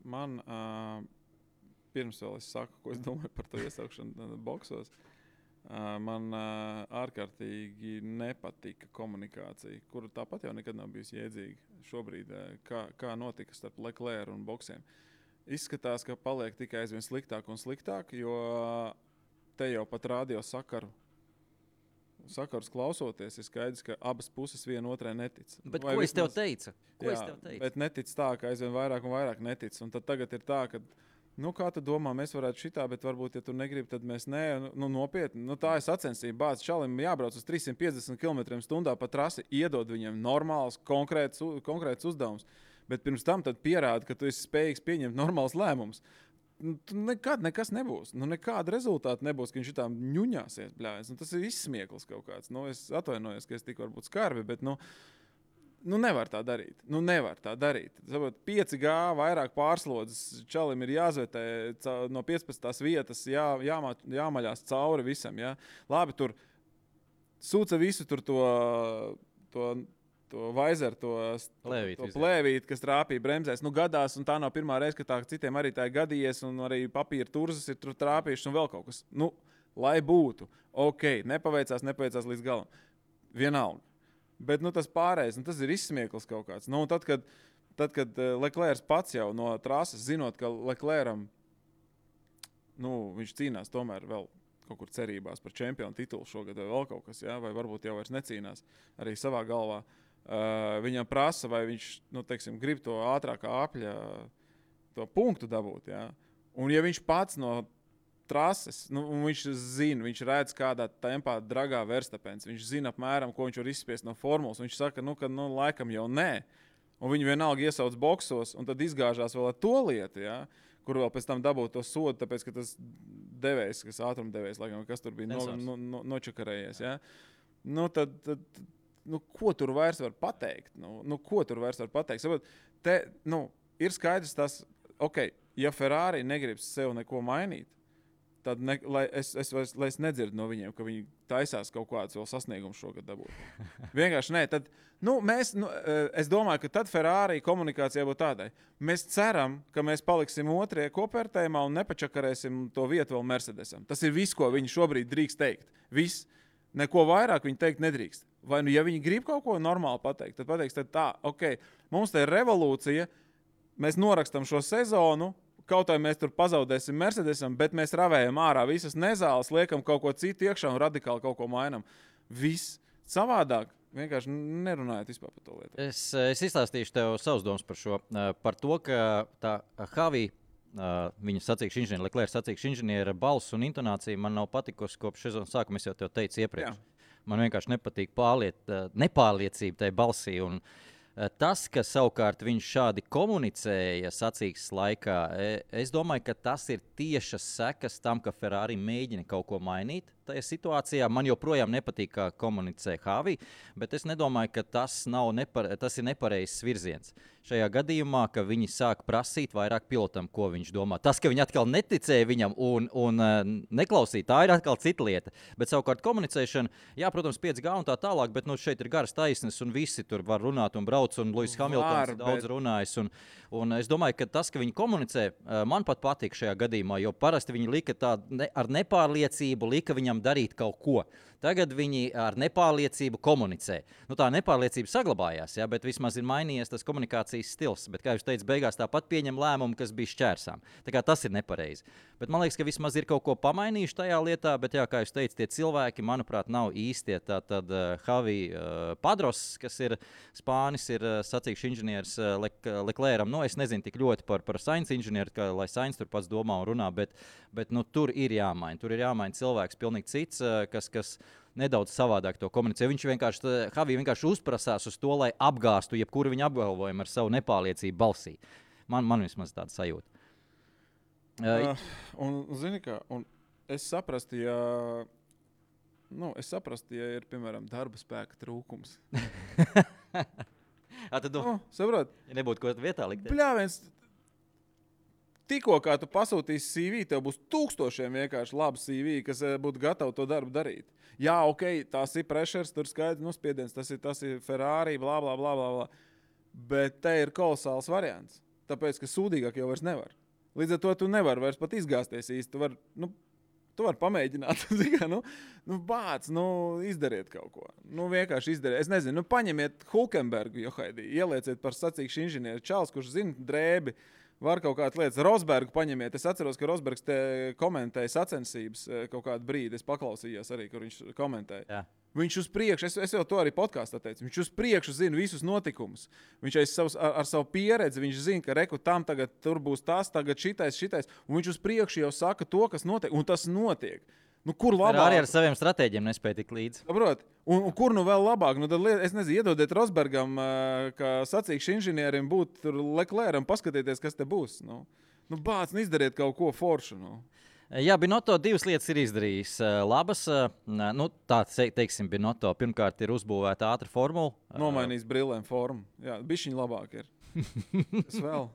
[SPEAKER 3] man pirms vēl es saku, ko es domāju par to iesaukšanu boksos, man ārkārtīgi nepatika komunikācija, kura tāpat jau nekad nav bijusi jēdzīga šobrīd, kā notika starp Leclerc un boksiem. Izskatās, ka paliek tikai aizvien sliktāk un sliktāk, jo te jau pat radio sakarus klausoties, ir skaidrs, ka abas puses viena otrai netic.
[SPEAKER 2] Bet ko es tev teicu?
[SPEAKER 3] Bet netic tā, ka aizvien vairāk un vairāk netic. Un tad tagad ir tā, ka, kā tu domā, mēs varētu šitā, bet varbūt, ja tu negribi, tad mēs ne, nopietni. Tā ir sacensība. Bāc šalim jābrauc uz 350 km/h pa trasi, iedod viņiem normāls, konkrēts uzdevums. Bet pirms tam pierāda, ka tu esi spējīgs pieņemt normāls lēmumus. Nekad nekas nebūs. Nekāda rezultāta nebūs, ka viņš šitām ņuņāsies. Bļājas. Tas ir izsmieklis kaut kāds. Es atvainojos, ka es tik varbūt skarbi, bet nevar tā darīt. Nevar tā darīt. 5G vairāk pārslodzes čalim ir jāzvetē no 15. vietas, jāmaļās cauri visam. Ja? Labi, tur sūca visu tur to vaizeru, to plēvīti, kas trāpīja bremzēs. Gadās, un tā nav pirmā reize, ka tā citiem arī tā ir gadījies, un arī papīra turzas ir tur trāpījušas un vēl kaut kas. Lai būtu. Ok, nepaveicās līdz galam. Vienalga. Bet tas pārējais, tas ir izsmieklis kaut kāds. Tad, kad Leclerc pats jau no trases, zinot, ka Leclercam, viņš cīnās tomēr vēl kaut kur cerībās par čempionu titulu šogad vai vēl kaut kas, ja? Vai varbūt jau vairs necīnās arī savā galvā. Viņam prasa, vai viņš, grib to ātrākā apļa to punktu dabūt, ja? Un ja viņš pats no trases, viņš zina, viņš redz kādā tempā dragā Verstapens, viņš zina apmēram, ko viņš var izspiest no formulas, viņš saka, ka laikam jau nē, un viņi vienalga iesauc boksos, un tad izgāžās vēl ar to lietu, ja? Kur vēl pēc tam dabūt to sodu, tāpēc, ka tas devējs, kas ātrumdevējs, laikam, kas tur bija nočakarējies, ja? Ko tur vairs var pateikt? Ko tur vairs var pateikt? Sabat, ir skaidrs tas, ja Ferrari negrib sev neko mainīt, tad lai es nedzirdu no viņiem, ka viņi taisās kaut kādus vēl sasniegumus šogad dabūt. Vienkārši nē. Tad, es domāju, ka tad Ferrari komunikācijā būtu tādai. Mēs ceram, ka mēs paliksim otrie kopvērtējumā un nepačakarēsim to vietu vēl Mercedesam. Tas ir viss, ko viņi šobrīd drīkst teikt. Viss. Neko vairāk viņi teikt nedrīkst. Vai ja viņi grib kaut ko normāli pateikt, tad pateiks, mums te ir revolūcija, mēs norakstam šo sezonu, kaut vai mēs tur pazaudēsim Mercedesam, bet mēs ravējam ārā visas nezāles, liekam kaut ko citu iekšā un radikāli kaut ko mainam. Viss savādāk. Vienkārši nerunājot vispār par to lietu.
[SPEAKER 2] Es izstāstīšu tev savus domas par šo. Par to, ka tā Havī, viņa sacīkšu inženiera, Leclerc sacīkšu inženiera balss un intonācija man nav patikusi kopš sezonas sākuma, es jau tev teicu iepriekš. Jā. Man vienkārši nepatīk nepārliecība tajā balsī. Un tas, ka savukārt viņš šādi komunicēja sacīkstes laikā, es domāju, ka tas ir tiešas sekas tam, ka Ferrari mēģina kaut ko mainīt. tajā situācijā. Man joprojām nepatīk, kā komunicē Havi, bet es nedomāju, ka tas ir nepareizs virziens. Šajā gadījumā, ka viņi sāk prasīt vairāk pilotam, ko viņš domā. Tas, ka viņi atkal neticēja viņam un neklausīja, tā ir atkal cita lieta. Bet savukārt komunicēšana, jā, protams, 5G un tā tālāk, bet šeit ir garas taisnes un visi tur var runāt un brauc, un Lewis Hamiltons daudz runājis. Un es domāju, ka tas, ka viņi komunicē, man pat patīk šajā gadījumā, jo parasti viņi lika ar nepārliecību, lika viņam darīt kaut ko. Tagad viņi ar nepārliecību komunicē. Tā nepārliecība saglabājās, ja, bet vismaz ir mainījies tas komunikācijas stils. Bet, kā jūs teicat, beigās tāpat pieņem lēmumu, kas bija šķērsām. Tā kā tas ir nepareizi. Bet man liekas, ka vismaz ir kaut ko pamainījuši tajā lietā, bet, jā, kā jūs teicat, tie cilvēki, manuprāt, nav īstie. Tad Javi Padros, kas ir Spānis, ir sacīkšu inženieris Leclercam. Es nezinu tik ļoti par Sainz inženieru, lai Sainz tur pats domā un runā, bet tur ir jāmaina. Tur ir jāmaina cilvēks pilnīgi cits, kas nedaudz savādāk to komunicē. Javi vienkārši uzprasās uz to, lai apgāstu jebkuru viņa apgalvojumu ar savu nepārliecību balsī. Man vismaz tāda sajūta.
[SPEAKER 3] Zini kā, es saprastu, ja ir, piemēram, darba spēka trūkums.
[SPEAKER 2] Tad
[SPEAKER 3] saprot?
[SPEAKER 2] Ja nebūtu ko vietā likt.
[SPEAKER 3] Bļāviens, tikko kā tu pasūtīsi CV, tev būs tūkstošiem vienkārši labu CV, kas būtu gatavi to darbu darīt. Jā, ok, tās ir pressures, tur skaidrs, spiediens, tas ir Ferrari, blā, blā, blā, blā. Bet te ir kolosāls variants, tāpēc, ka sūdīgāk jau vairs nevar. Līdz ar to tu nevari vairs pat izgāzties īsti. Tu vari pamēģināt, izdariet kaut ko. Vienkārši izdariet. Es nezinu, paņemiet Hulkenbergu, ielieciet par sacīkšu inženieri Čāls, kurš zina drēbi. Var kaut kādas lietas. Rosbergu paņemiet. Es atceros, ka Rosbergs te komentēja sacensības kaut kādu brīdi. Es paklausījos arī, kur viņš komentēja. Jā. Viņš uz priekšu, es jau to arī podkāstā teicu, viņš uz priekšu zina visus notikumus. Viņš ar savu pieredzi, viņš zina, ka reku tam tagad tur būs tas, tagad šitais. Un viņš uz priekšu jau saka to, kas notiek. Un tas notiek. Kur labāk?
[SPEAKER 2] Arī ar saviem stratēģiem nespēja tik līdzi.
[SPEAKER 3] Saprot? Un kur vēl labāk? Tad, es nezinu, iedodiet Rosbergam, kā sacīkšu inženierim būt tur Leclercam, paskatieties, kas te būs. Bāc, izdariet kaut ko foršu.
[SPEAKER 2] Jā, Binotto 2 lietas ir izdarījis labas. Teiksim, Binotto pirmkārt ir uzbūvēta ātra formula.
[SPEAKER 3] Nomainījis brillēm formu. Jā, bišķiņ labāk ir. Es vēl.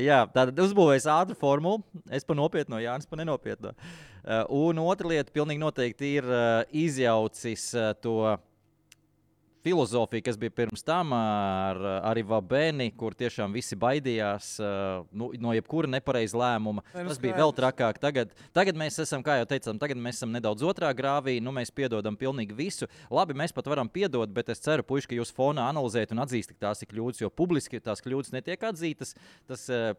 [SPEAKER 2] Jā, tātad uzbūvējis ātru formulu. Es pa nopietno, Jānis pa nenopietno. Un otra lieta pilnīgi noteikti ir izjaucis to filozofiju, kas bija pirms tam ar Vabeni, kur tiešām visi baidījās no jebkura nepareiza lēmuma. Tas bija vēl trakāk. Tagad mēs esam, kā jau teicām, nedaudz otrā grāvī. Mēs piedodam pilnīgi visu. Labi, mēs pat varam piedot, bet es ceru, puiši, ka jūs fonā analizējat un atzīstat, ka tās ir kļūdas, jo publiski tās kļūdas netiek atzītas.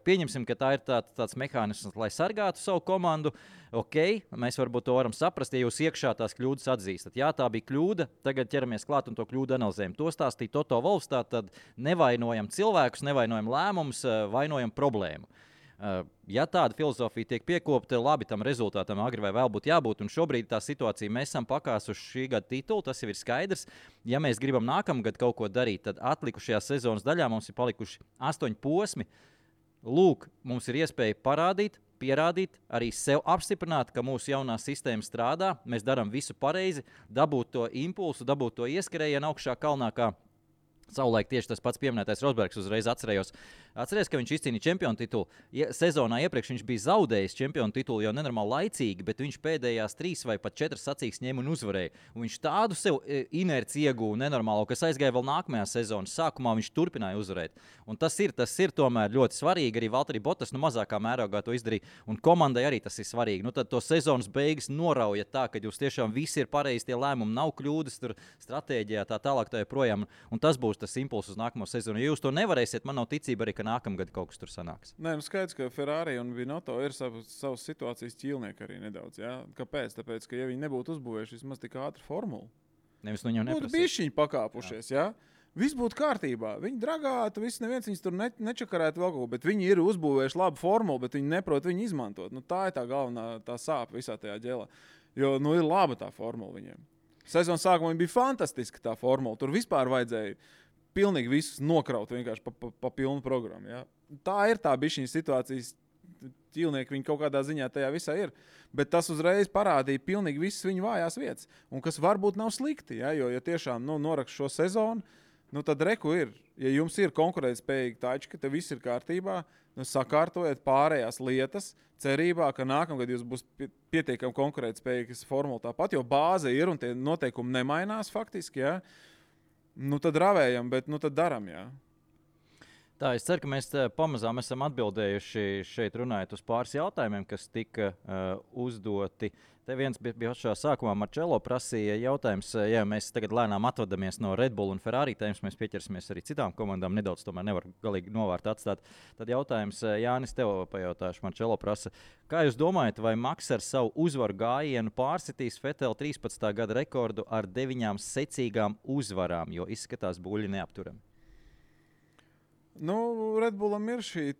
[SPEAKER 2] Pieņemsim, ka tā ir tāds mehānisms, lai sargātu savu komandu. Ok, mēs varbūt to varam saprast, ja jūs iekšā tās kļūdas atzīstat. Jā, tā bija kļūda, tagad ķeramies klāt un to kļūdu analizējam. To stāstīja Toto Wolffs, tad nevainojam cilvēkus, nevainojam lēmumus, vainojam problēmu. Ja tāda filozofija tiek piekopta, labi, tam rezultātam agri vai vēl būtu jābūt, un šobrīd tā situācija, mēs esam pakāsuši šī gada titulu, tas jau ir skaidrs. Ja mēs gribam nākamgad kaut ko darīt, tad atlikušajā sezonas daļā mums ir palikuši 8 posmi. Lūk, mums ir iespēja pierādīt, arī sev apstiprināt, ka mūsu jaunā sistēma strādā, mēs darām visu pareizi, dabūt to impulsu, dabūt to ieskrējienu augšā kalnā, kā savulaik tieši tas pats pieminētais Rosbergs uzreiz atcerējos, ka viņš izcīnīja čempionu titulu. Sezonā iepriekš viņš bija zaudējis čempionu titulu jau nenormāli laicīgi, bet viņš pēdējās 3 vai pat 4 sacīkstes ņēma un uzvarēja. Un viņš tādu sev inerci ieguva nenormālo, kas aizgāja vēl nākamajā sezonas sākumā, viņš turpināja uzvarēt. Un tas ir tomēr ļoti svarīgi. Arī Valtteri Bottas mazākā mērogā to izdarīja. Un komandai arī tas ir svarīgi. Tad to sezonas beigas norauja tā, ka jūs tiešām visi ir pareizi, tie lēmumi nav kļūdas, tur stratēģijā tā tālāk tā joprojām. Un tas būs tas impulss uz nākamo sezonu. Ja jūs to nevarēsiet, man nav ticība arī, ka nākamgad kaut kas tur sanāks.
[SPEAKER 3] Nē, skaidrs, ka Ferrari un Binotto ir savas situācijas ķīlnieki arī nedaudz. Jā? Kāpēc? Tāpēc, ka ja viņi nebūtu uzbūvējuši vismaz tik ātru formulu,
[SPEAKER 2] nevis viņam neprasīt.
[SPEAKER 3] Būtu bišķiņi pakāpušies, jā? Viss būtu kārtībā. Viņi dragātu, neviens viņus tur nečakarētu vēl kaut ko, bet viņi ir uzbūvējuši labu formulu, bet viņi neprot viņu izmantot. Tā ir tā galvenā sāpe visā tajā ģēlā. Jo ir laba tā formula viņiem. Sezonas sākumā bija fantastiska tā formula. Tur vispār vajadzēja pilnīgi visus nokraut vienkārši pa pilnu programmu. Ja? Tā ir tā bišķiņa situācijas ķīlnieki viņi kaut kādā ziņā tajā visā ir. Bet tas uzreiz parādīja pilnīgi visas viņu vājās vietas. Un kas varbūt nav slikti, ja, jo ja tiešām norakst šo sezonu, tad reku ir. Ja jums ir konkurētspējīgi tački, te viss ir kārtībā, sakārtojiet pārējās lietas, cerībā, ka nākamgad jūs būs pietiekami konkurētspējīgas formula tāpat, jo bāze ir un tie noteikumi nemainās faktiski, ja. Tad ravējam, bet tad daram, jā.
[SPEAKER 2] Tā, es ceru, ka mēs pamazām esam atbildējuši šeit runājot uz pāris jautājumiem, kas tika uzdoti. Te viens bija pašā sākumā, Marčelo prasīja jautājums, ja mēs tagad lēnām atvadamies no Red Bull un Ferrari tēmas, mēs pieķersimies arī citām komandām, nedaudz tomēr nevar galīgi novārt atstāt. Tad jautājums, Jānis, tev pajautāšu, Marčelo prasa, kā jūs domājat, vai Maks ar savu uzvaru gājienu pārsitīs Vettel 13. gada rekordu ar 9 secīgām uzvarām, jo izskatās buļļi neapturami?
[SPEAKER 3] Red Bullam ir šī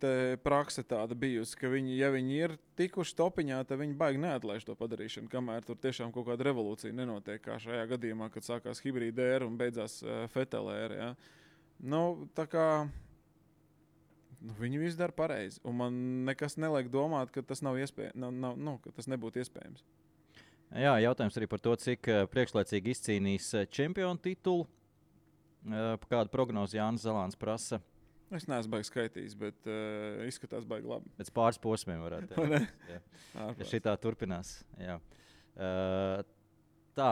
[SPEAKER 3] prakse tāda bijusi, ka viņi, ja viņi ir tikuši topiņā, tad viņi baigi neatlaiž to padarīšanu, kamēr tur tiešām kaut kāda revolūcija nenotiek, kā šajā gadījumā, kad sākās hibrīda ēra un beidzās Vettel ēra. Ja? Tā kā viņi visu dara pareizi, un man nekas neliek domāt, ka tas nav iespējams, ka tas nebūtu iespējams.
[SPEAKER 2] Jā, jautājums arī par to, cik priekšlaicīgi izcīnīs čempionu titulu. Kādu prognozi Jānis Zalāns prasa?
[SPEAKER 3] Es neesmu baigi skaitījis, bet izskatās baigi labi.
[SPEAKER 2] Pēc pāris posmiem varētu teikt. Ja šitā turpinās. Jā. Tā,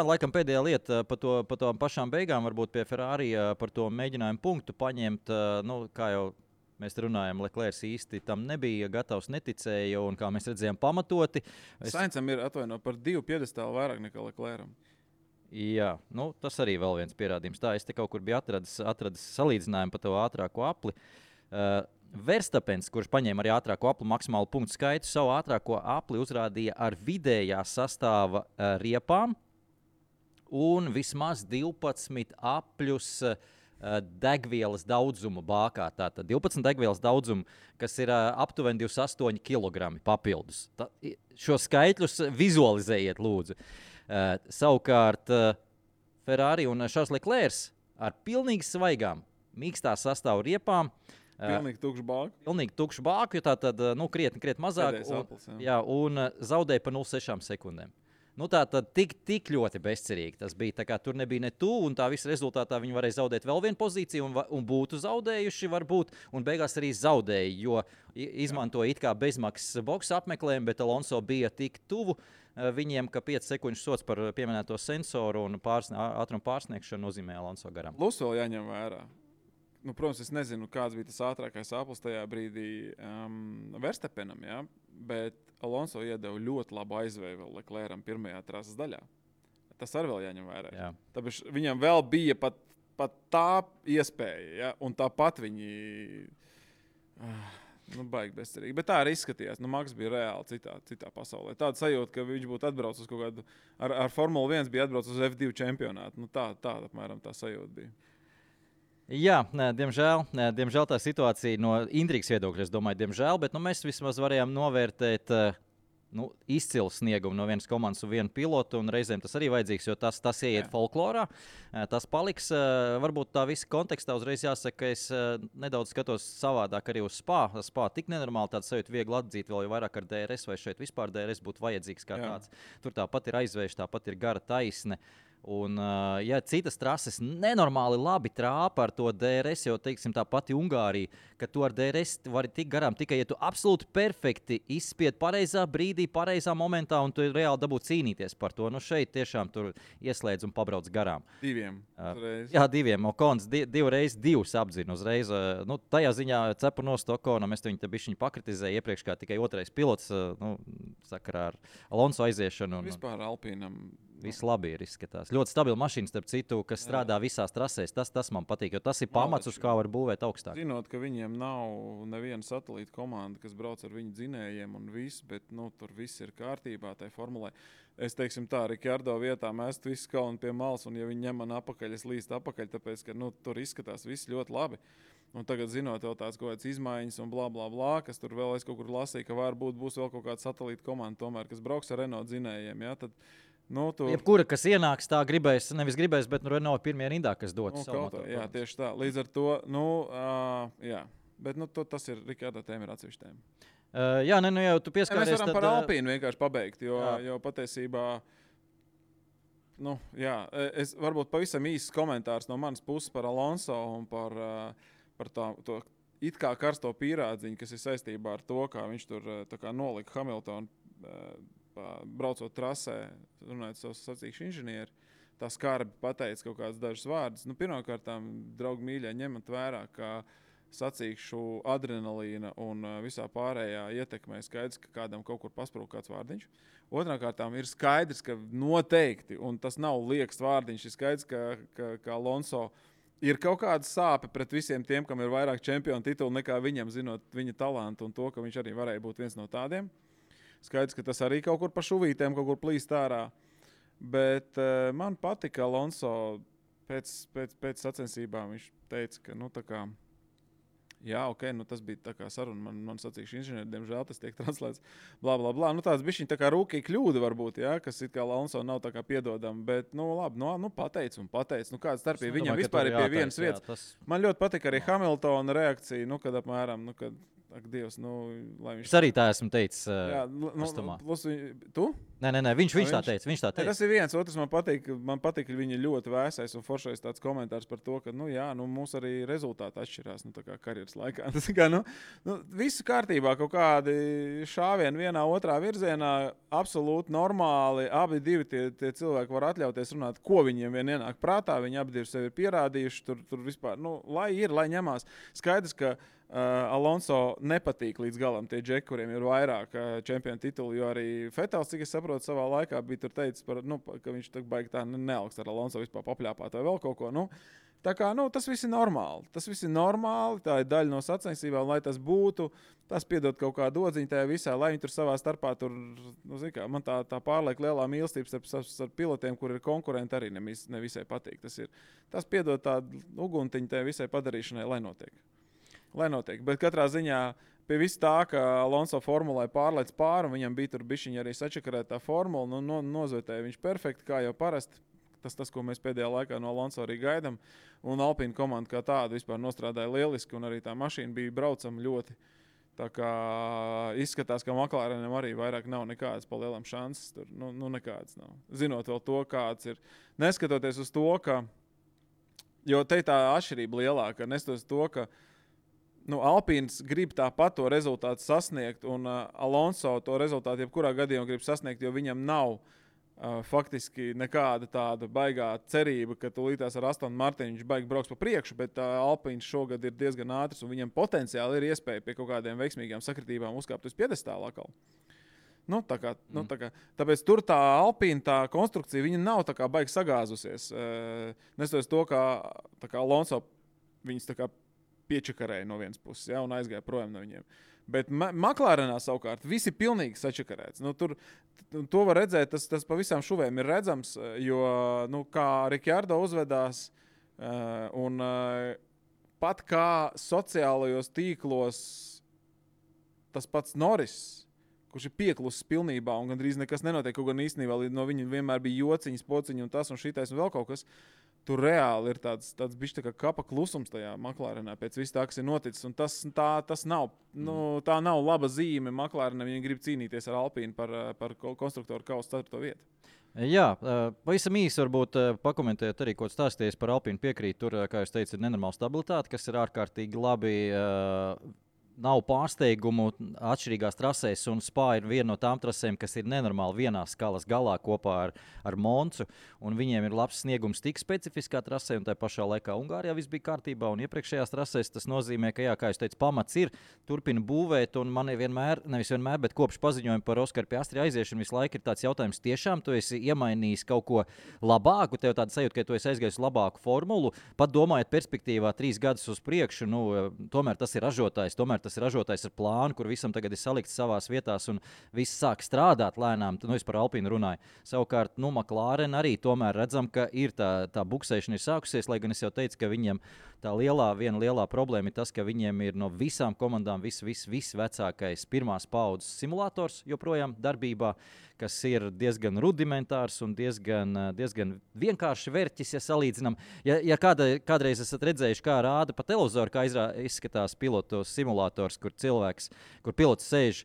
[SPEAKER 2] laikam pēdējā lieta par to pašām beigām, varbūt pie Ferrari par to mēģinājumu punktu paņemt, kā jau mēs runājam, Leclerc īsti tam nebija gatavs, neticēja, un kā mēs redzējām pamatoti.
[SPEAKER 3] Saincam ir par 2 piedestālu vairāk nekā Leclercam.
[SPEAKER 2] Jā, tas arī vēl viens pierādījums. Tā, es te kaut kur biju atradis salīdzinājumu par to ātrāko apli. Verstapens, kurš paņēma arī ātrāko apli maksimālu punktu skaitu, savu ātrāko apli uzrādīja ar vidējā sastāva riepām un vismaz 12 apļus degvielas daudzumu bākā. Tātad 12 degvielas daudzumu, kas ir aptuveni 28 kg papildus. Šo skaitļus vizualizējiet, lūdzu. Savukārt Ferrari un Charles Leclerc ar pilnīgi svaigām, mīkstā sastāvu riepām.
[SPEAKER 3] Pilnīgi
[SPEAKER 2] tukšu bāku, jo tā tad krietni mazāk. Un zaudēja pa 0,6 sekundēm. Tā tad tik ļoti bezcerīgi tas bija. Tā kā tur nebija ne tuvu, un tā visa rezultātā viņi varēja zaudēt vēl vienu pozīciju un būtu zaudējuši varbūt, un beigās arī zaudēja, jo izmantoja it kā bezmaksas boksa apmeklējumu, bet Alonso bija tik tuvu viņiem, ka 5 sekundžu sots par pieminēto sensoru un ātrumu pārsniegšanu nozīmē Alonso garām.
[SPEAKER 3] Plus vēl jāņem vērā. Protams, es nezinu, kāds bija tas ātrākais aplis tajā brīdī Verstappenam, ja? Bet Alonso iedeva ļoti labu aizvēju vēl Leclercam pirmajā trases daļā. Tas arī vēl jāņem vērā. Jā. Tāpēc viņam vēl bija pat tā iespēja, ja? Un tāpat viņi baigi bezcerīgi. Bet tā arī izskatījās. Maks bija reāli citā pasaulē. Tāda sajūta, ka viņš būtu atbraucis uz kaut kādu, ar Formula 1 bija atbraucis uz F2 čempionātu. Tāda apmēram tā sajūta bija.
[SPEAKER 2] Jā, diemžēl tā situācija no intrigas viedokļa, es domāju, diemžēl, bet mēs vismaz varējām novērtēt izcilu sniegumu no vienas komandas un vienu pilotu, un reizēm tas arī vajadzīgs, jo tas ieiet folklorā, tas paliks. Varbūt tā visa kontekstā uzreiz jāsaka, ka es nedaudz skatos savādāk arī uz Spa. Spa tik nenormāli tāds sajūta viegli atzīt, vēl jau vairāk ar DRS, vai šeit vispār DRS būtu vajadzīgs kā tāds. Tur tāpat ir aizvērš, tāpat ir gara taisne. Un, ja citas trases nenormāli labi trāpa ar to DRS, jo, teiksim, tā pati Ungārija, ka tu ar DRS vari tik garām tikai, ja tu absolūti perfekti izspied pareizā brīdī, pareizā momentā, un tu reāli dabū cīnīties par to. Šeit tiešām tur ieslēdz un pabrauc garām.
[SPEAKER 3] 2.
[SPEAKER 2] Jā, 2. Okons 2x2 apdzina uzreiz. Tajā ziņā cepu no Okonam, es viņu te bišķiņu pakritizēju iepriekš kā tikai otrais pilots, sakarā ar Alonso aiziešanu.
[SPEAKER 3] Vispār Alpīnam.
[SPEAKER 2] Viss labi ir izskatās. Ļoti stabila mašīna, starp citu, kas strādā visās trasēs. Tas man patīk, jo tas ir pamats, uz kā var būvēt augstāk.
[SPEAKER 3] Zinot, ka viņiem nav neviena satelīta komanda, kas brauc ar viņu dzinējiem un viss, bet tur viss ir kārtībā tai formulē. Es teiksim tā, Rikardo vietā mēs visu kalnu pie malas, un ja viņi ņem man apakaļ, es līstu apakaļ, tāpēc, ka tur izskatās viss ļoti labi. Un tagad, zinot, vēl tās kaut kādas izmaiņas un blā, blā, blā, kas tur vēl es kaut kur lasīju, ka varbūt būs vēl kaut kāda satelīta komanda, tomēr, kas brauks ar Renault dzinējiem, ja, tad
[SPEAKER 2] jebkura, kas ienāks, tā nevis gribēs, bet Renault pirmie rindā, kas dotu savu motoru.
[SPEAKER 3] Jā, tieši tā. Līdz ar to, jā. Bet tas ir Rikardo tēma, ir atsevišķa tēma.
[SPEAKER 2] Jā, nu jau tu pieskāries.
[SPEAKER 3] Mēs varam par Alpīnu vienkārši pabeigt, jo patiesībā, es varbūt pavisam īsts komentārs no manas puses par Alonso un par to it kā karsto pīrādziņu, kas ir saistībā ar to, kā viņš tur nolika Hamiltonu braucot trasē, runājot savus sacīkšu inženieri. Tā skarbi pateica kaut kādas dažas vārdas. Pirmkārtām, draugi mīļie, ņemat vērā, ka sacīkšu adrenalīna un visā pārējā ietekmē skaidrs, ka kādam kaut kur pasprūk kāds vārdiņš. Otrkārtām ir skaidrs, ka noteikti, un tas nav liekas vārdiņš, ir skaidrs, ka Alonso ir kaut kāda sāpe pret visiem tiem, kam ir vairāk čempionu titulu nekā viņam, zinot viņa talantu un to, ka viņš arī varēja būt viens no tādiem. Skaidrs, ka tas arī kaut kur pa šuvītēm, kaut kur plīst ārā. Bet man patika Alonso pēc sacensībām. Viņš teica, ka tas bija tā kā saruna. Man sacīkšu inženieri, diemžēl tas tiek translēts. Blā, blā, blā. Tas bišķiņ tā kā rūkī kļūda varbūt, kas it kā Alonso nav tā kā piedodama. Bet, labi, pateic. Kāda starpība viņam vispār ir pie vienas vietas. Man ļoti patika arī Hamiltona reakcija, kad apmēram, ak, Dievs, lai viņš...
[SPEAKER 2] Es arī tā esmu teicis.
[SPEAKER 3] Tu?
[SPEAKER 2] Nē, viņš tā teica.
[SPEAKER 3] Tas ir viens, otrs man patīk, ka viņi ļoti vēsais un foršais tāds komentārs par to, ka, mūs arī rezultāti atšķirās, tā kā karjeras laikā. Tas kā, visu kārtībā, kaut kādi šāvieni vienā, otrā virzienā, absolūti normāli, abi divi tie cilvēki var atļauties runāt, ko viņiem vien ienāk prātā, viņi abi divi sevi ir pierādījuši, tur vispār, lai ņemās. Skaidrs, ka Alonso nepatīk līdz galam tie džeki, kuriem ir vairāk čempionu titulu, jo arī Fetels, cik es saprotu, savā laikā bija tur teicis, ka viņš baigi tā neaugst ar Alonso vispār papļāpāt vai vēl kaut ko. Tā kā, tas viss ir normāli. Tā ir daļa no sacensībām, lai tas būtu. Tas piedod kaut kādu odziņu tajā visā, lai viņi tur savā starpā tur, man tā pārliek lielā mīlestība starp pilotiem, kur ir konkurenti, arī nevisai patīk. Tas piedod tādu uguntiņu tajā visai padarīšanai, lai notiek. Bet katrā ziņā pie viss tā, ka Alonso formulai pārlec pāri, un viņam bija tur bišķiņi arī sačakarētā formula, nozvetēja viņš perfekti, kā jau parasti. Tas, ko mēs pēdējā laikā no Alonso arī gaidām. Un Alpine komanda kā tāda vispār nostrādāja lieliski, un arī tā mašīna bija braucama ļoti. Tā kā izskatās, ka McLarenam arī vairāk nav nekādas pa lielam šansas. Tur, nekādas nav. Zinot vēl to, kāds ir. Neskatoties uz to, ka... Jo te tā atšķirība lielāka, neskatoties to, ka Alpīns grib tāpat to rezultātu sasniegt, un Alonso to rezultātu jebkurā gadījumā grib sasniegt, jo viņam nav faktiski nekāda tāda baigā cerība, ka tūlītās ar Aston Martin viņš baigi brauks pa priekšu, bet Alpīns šogad ir diezgan ātrs, un viņam potenciāli ir iespēja pie kaut kādiem veiksmīgām sakritībām uzkāpt uz piedestāla atkal. Tāpēc tur tā Alpīna, tā konstrukcija, viņa nav tā kā baigi sagāzusies. Nestoties to, ka Alonso viņas tā kā piečakarēja no vienas puses, un aizgāja projām no viņiem. Bet McLarenā savukārt viss ir pilnīgi sačakarēts. To var redzēt, tas pa visām šuvēm ir redzams, jo, kā Ricciardo uzvedās, un pat kā sociālajos tīklos tas pats Norris, kurš ir pieklusis pilnībā un gandrīz nekas nenotiek, kaut gan īstenībā no viņa vienmēr bija jociņas, pociņi un tas un šitais un vēl kaut kas. Tur reāli ir tāds bišķi tā kā kapa klusums tajā McLarenā pēc viss tā, kas ir noticis. Un tas nav, tā nav laba zīme McLarenam, viņi grib cīnīties ar Alpīnu par konstruktoru kausa 4. vietu.
[SPEAKER 2] Jā, pavisam īsi varbūt pakomentēt arī, ko stāstījies par Alpīnu piekrīt. Tur, kā jūs teicat, ir nenormāla stabilitāte, kas ir ārkārtīgi labi. Nav pārsteigumu atšķirīgās trasēs, un Spa ir viena no tām trasēm, kas ir nenormāli vienā skalas galā kopā ar Moncu, un viņiem ir labs sniegums tik specifiskā trasē, un tā pašā laikā Ungārijā viss bija kārtībā, un iepriekšējās trasēs tas nozīmē, ka, jā, kā jūs teicat, pamats ir, turpina būvēt, un man nevis vienmēr, bet kopš paziņojuma par Oskaru Piastri aiziešanu visu laiku ir tāds jautājums, tiešām tu esi iemainījis kaut ko labāku, tev tāda sajūta, ka tu esi aizgājis labāku formulu, pat domājot perspektīvā 3 gadus uz priekšu, tomēr tas ir ražotājs, tas ir ražotājs ar plānu, kur visam tagad ir salikts savās vietās un viss sāk strādāt lēnām. Es par Alpīnu runāju. Savukārt, McLaren arī tomēr redzam, ka ir tā buksēšana ir sākusies, lai gan es jau teicu, ka viņiem tā viena lielā problēma ir tas, ka viņiem ir no visām komandām viss vecākais pirmās paudzes simulators joprojām darbībā, kas ir diezgan rudimentārs un diezgan vienkārši vērķis, ja salīdzinām. Ja kādreiz esat redzējuši, kā rāda pa televizoru, kā izskatās pilotu simulators, kur pilots sēž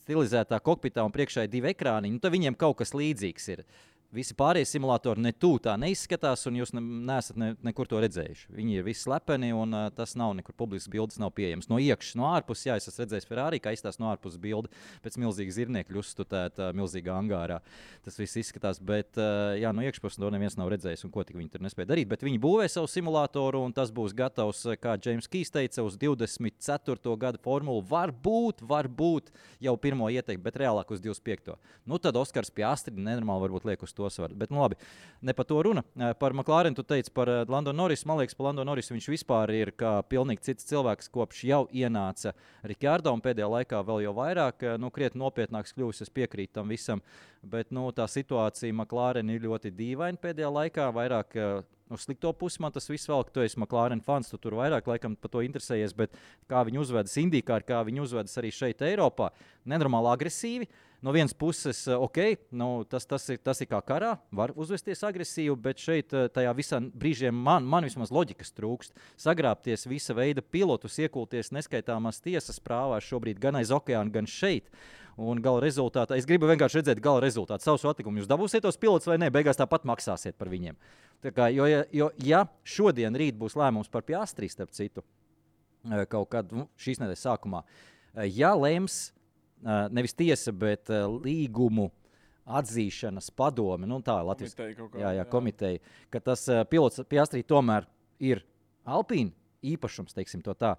[SPEAKER 2] stilizētā kokpitā un priekšā ir 2 ekrāniņi, tad viņiem kaut kas līdzīgs ir. Visi pārējie simulatori tā neizskatās, un jūs neesat nekur to redzējuši. Viņi ir visi slepeni, un tas nav nekur publisks bildes, nav pieejams. No iekšas, no ārpuses, jā, es esmu redzējis Ferrari, kā izstās no ārpuses bilde pēc milzīga zirniekļa uzstutēta milzīgā angārā. Tas viss izskatās, bet jā, no iekšpuses to neviens nav redzējis, un ko tik viņi tur nespēja darīt. Bet viņi būvē savu simulatoru, un tas būs gatavs, kā James Keys teica, uz 24. gada formulu. Varbūt jau pirmo ieteikti, bet reālāk uz 25. Nu, tad Oskars Piastri nenormāli varbūt liek uz to svaru. Bet, nu labi, ne par to runa. Par McLaren tu teici par Lando Norrisu. Man liekas, par Lando Norrisu viņš vispār ir kā pilnīgi cits cilvēks, kopš jau ienāca Ricciardo, un pēdējā laikā vēl jau vairāk, krietni nopietnāks kļuvis, es piekrītu tam visam. Bet, tā situācija McLaren ir ļoti dīvaina pēdējā laikā, vairāk uz slikto pusi man tas viss vēl, ka tu esi McLaren fans, tu tur vairāk laikam par to interesējies, bet kā viņi uzvedas IndyCar, kā viņi uzvedas arī šeit Eiropā, nenormāli agresīvi. No vienas puses, tas ir kā karā, var uzvesties agresīvi, bet šeit tajā visā brīžiem man vismaz loģikas trūkst. Sagrābties visa veida pilotus, iekulties neskaitāmās tiesas prāvās šobrīd gan aiz okeāna, gan šeit. Un gala rezultātā, es gribu vienkārši redzēt gala rezultātu. Savus atlikumus jūs dabūsiet tos pilotus vai ne, beigās tāpat maksāsiet par viņiem. Ja šodien rīt būs lēmums par Piastri, starp citu, kaut kad šīs nedēļas sākumā, ja lems nevis tiesa, bet līgumu atzīšanas padome, tā Latvijas komiteja, ka tas pilots Piastri tomēr ir Alpine īpašums, teiksim to tā,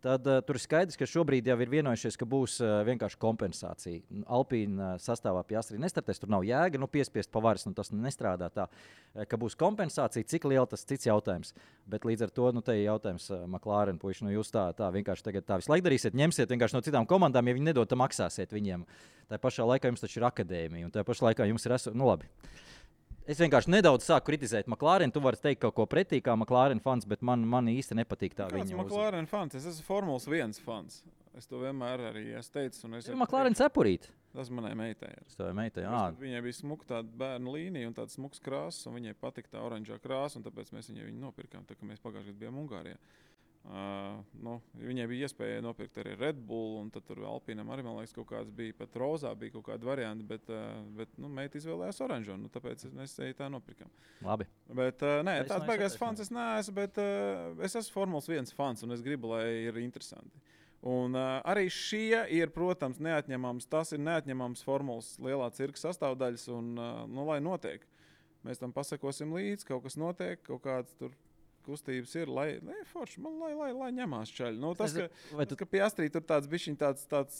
[SPEAKER 2] tad tur ir skaidrs, ka šobrīd jau ir vienojušies, ka būs vienkārši kompensācija. Alpine sastāvā Piastri nestartēs, tur nav jēga, piespiest pa varas, tas nestrādā tā, ka būs kompensācija, cik liela tas cits jautājums. Bet līdz ar to, te ir jautājums McLaren puiši, jūs tā vienkārši tagad tā visu laiku darīsiet, ņemsiet vienkārši no citām komandām, ja viņi nedod, tad maksāsiet viņiem. Tā pašā laikā jums taču ir akadēmija, un tā pašā laikā jums ir labi. Es vienkārši nedaudz sāku kritizēt McLaren. Tu vari teikt kaut ko pretī kā McLaren fans, bet man īsti nepatīk tā viņa.
[SPEAKER 3] McLaren fans? Es esmu Formulas 1 fans. Es to vienmēr arī esmu teicis.
[SPEAKER 2] McLaren cepurīt.
[SPEAKER 3] Tas manai meitai ir. Viņai bija smuka tāda bērnu līnija un tāds smuks krāsas, un viņai patika tā oranžā krāsa, un tāpēc mēs viņu nopirkām, tā kā mēs pagājušajā gadā bijām Ungārijā. Viņai bija iespēja nopirkt arī Red Bull, un tad tur Alpīnam arī, man liekas, kaut kāds bija, pat rozā bija kaut kāda varianti, bet meita izvēlējās oranžo, tāpēc mēs tā nopirkām.
[SPEAKER 2] Labi.
[SPEAKER 3] Bet, tāds baigās fans es neesmu, bet es esmu Formulas 1 fans, un es gribu, lai ir interesanti. Un arī šie ir, protams, tas ir neatņemams Formulas lielā cirka sastāvdaļas, un, lai notiek. Mēs tam pasakosim līdzi, kaut kas notiek, kaut kāds tur kustības ir, lai ņemās čaļi. Ka Piastri tur tāds bišķiņ tāds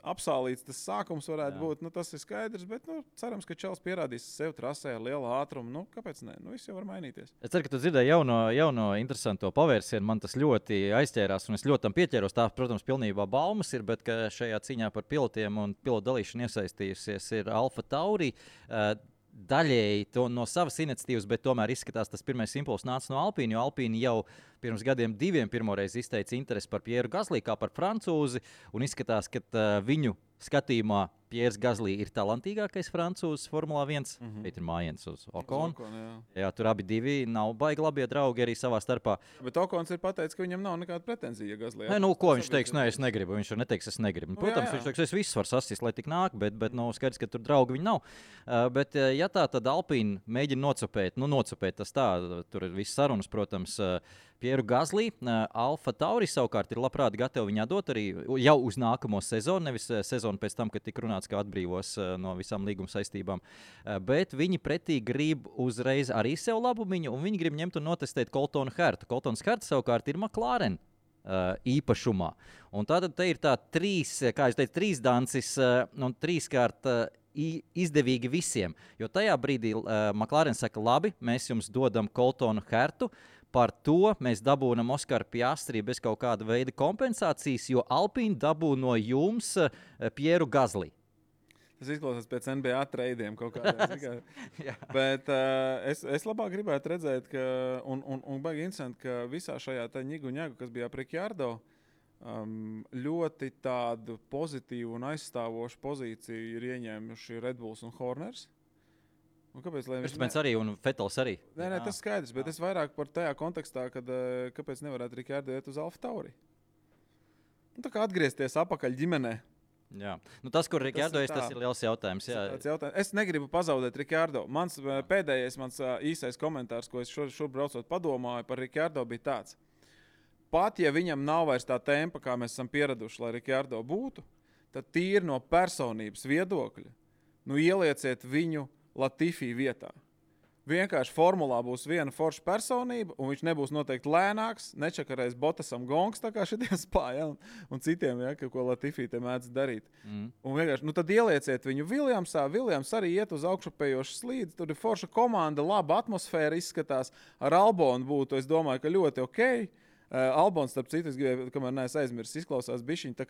[SPEAKER 3] apsālīts tas sākums varētu būt, tas ir skaidrs, bet cerams, ka čalis pierādīs sev trasē ar lielu ātrumu. Kāpēc ne? Viss jau var mainīties.
[SPEAKER 2] Es ceru, ka tu dzirdēji jauno interesanto pavērsienu. Man tas ļoti aizķērās, un es ļoti tam pieķēros. Tā, protams, pilnībā baumas ir, bet ka šajā cīņā par pilotiem un pilotu dalīšanu iesaistījusies ir Alfa Tauri. Daļēji to no savas iniciatīvas, bet tomēr izskatās, tas pirmais impulss nāca no Alpīna, jo Alpīna jau pirms gadiem 2 pirmoreiz izteica interesi par Pieru Gaslī kā par francūzi, un izskatās, ka viņu skatījumā Piers Gaslī ir talantīgākais francūzis Formulā 1. Šeit ir mājiens uz Okonu. Jā, tur abi divi nav baigi labie draugi arī savā starpā.
[SPEAKER 3] Bet Okons ir pateicis, ka viņam nav nekāda pretenzija Gaslī.
[SPEAKER 2] Ko viņš teiks? Es negribu. Viņš neteiks, es negribu. Protams, viņš teiks, es visus varu sasist, lai tik nāk, bet skaidrs, ka tur draugi viņi nav. Bet ja tā, tad Alpīna mēģina nocupēt tas tā, tur ir viss sarunas, protams, Pieru Gaslī. Alfa Tauri savukārt ir labprāt gatavi viņā dot arī jau uz nākamo sezonu, nevis sezonu pēc tam, kad tika runāts, kā atbrīvos no visām līguma saistībām. Bet viņi pretī grib uzreiz arī sev labumiņu, un viņi grib ņemt un notestēt Coltonu Hertu. Coltons Herts savukārt ir McLaren īpašumā. Un tātad te ir tā trīs dancis un trīskārt izdevīgi visiem. Jo tajā brīdī McLaren saka, labi, mēs jums dodam Coltonu Hertu, par to mēs dabūnam Oskaru Piastri bez kaut kāda veida kompensācijas, jo Alpine dabū no jums Pieru Gaslī.
[SPEAKER 3] Tas izklausās pēc NBA treidiem kaut kādiem. Bet es labāk gribētu redzēt, ka, un baigi interesanti, ka visā šajā ņigu, kas bija ap Ricciardo, ļoti tādu pozitīvu un aizstāvošu pozīciju ir ieņēmuši Red Bulls un Horners. Un kāpēc?
[SPEAKER 2] Verstapens arī un Vettels arī.
[SPEAKER 3] Nē, tas skaidrs, bet es vairāk par tajā kontekstā, kad kāpēc nevarētu Ricardo iet uz Alfa Tauri. Tā kā atgriezties apakaļ ģimenē.
[SPEAKER 2] Jā. Tas, kur Ricardo tas ir liels jautājums.
[SPEAKER 3] Es negribu pazaudēt Ricardo. Pēdējais īsais komentārs, ko es šur braucot padomāju par Ricardo, bija tāds. Pat, ja viņam nav vairs tā tempa, kā mēs esam pieraduši, lai Ricardo būtu, tad tīri no personības viedokļa, ielieciet viņu Latifi vietā. Vienkārši formulā būs viena forša personība, un viņš nebūs noteikti lēnāks, nečakarēs Bottasam gongs, tā kā šitie spāja, un citiem, ko Latifi te mēdz darīt. Un vienkārši, tad ielieciet viņu Williamsā, Williams arī iet uz augšupējošu slīdi, tur ir forša komanda, laba atmosfēra izskatās, ar Albonu būtu, es domāju, ka ļoti okei. Albons, starp citu, es gribēju, kamēr neesmu aizmirsis, izklausās bišķiņ, tā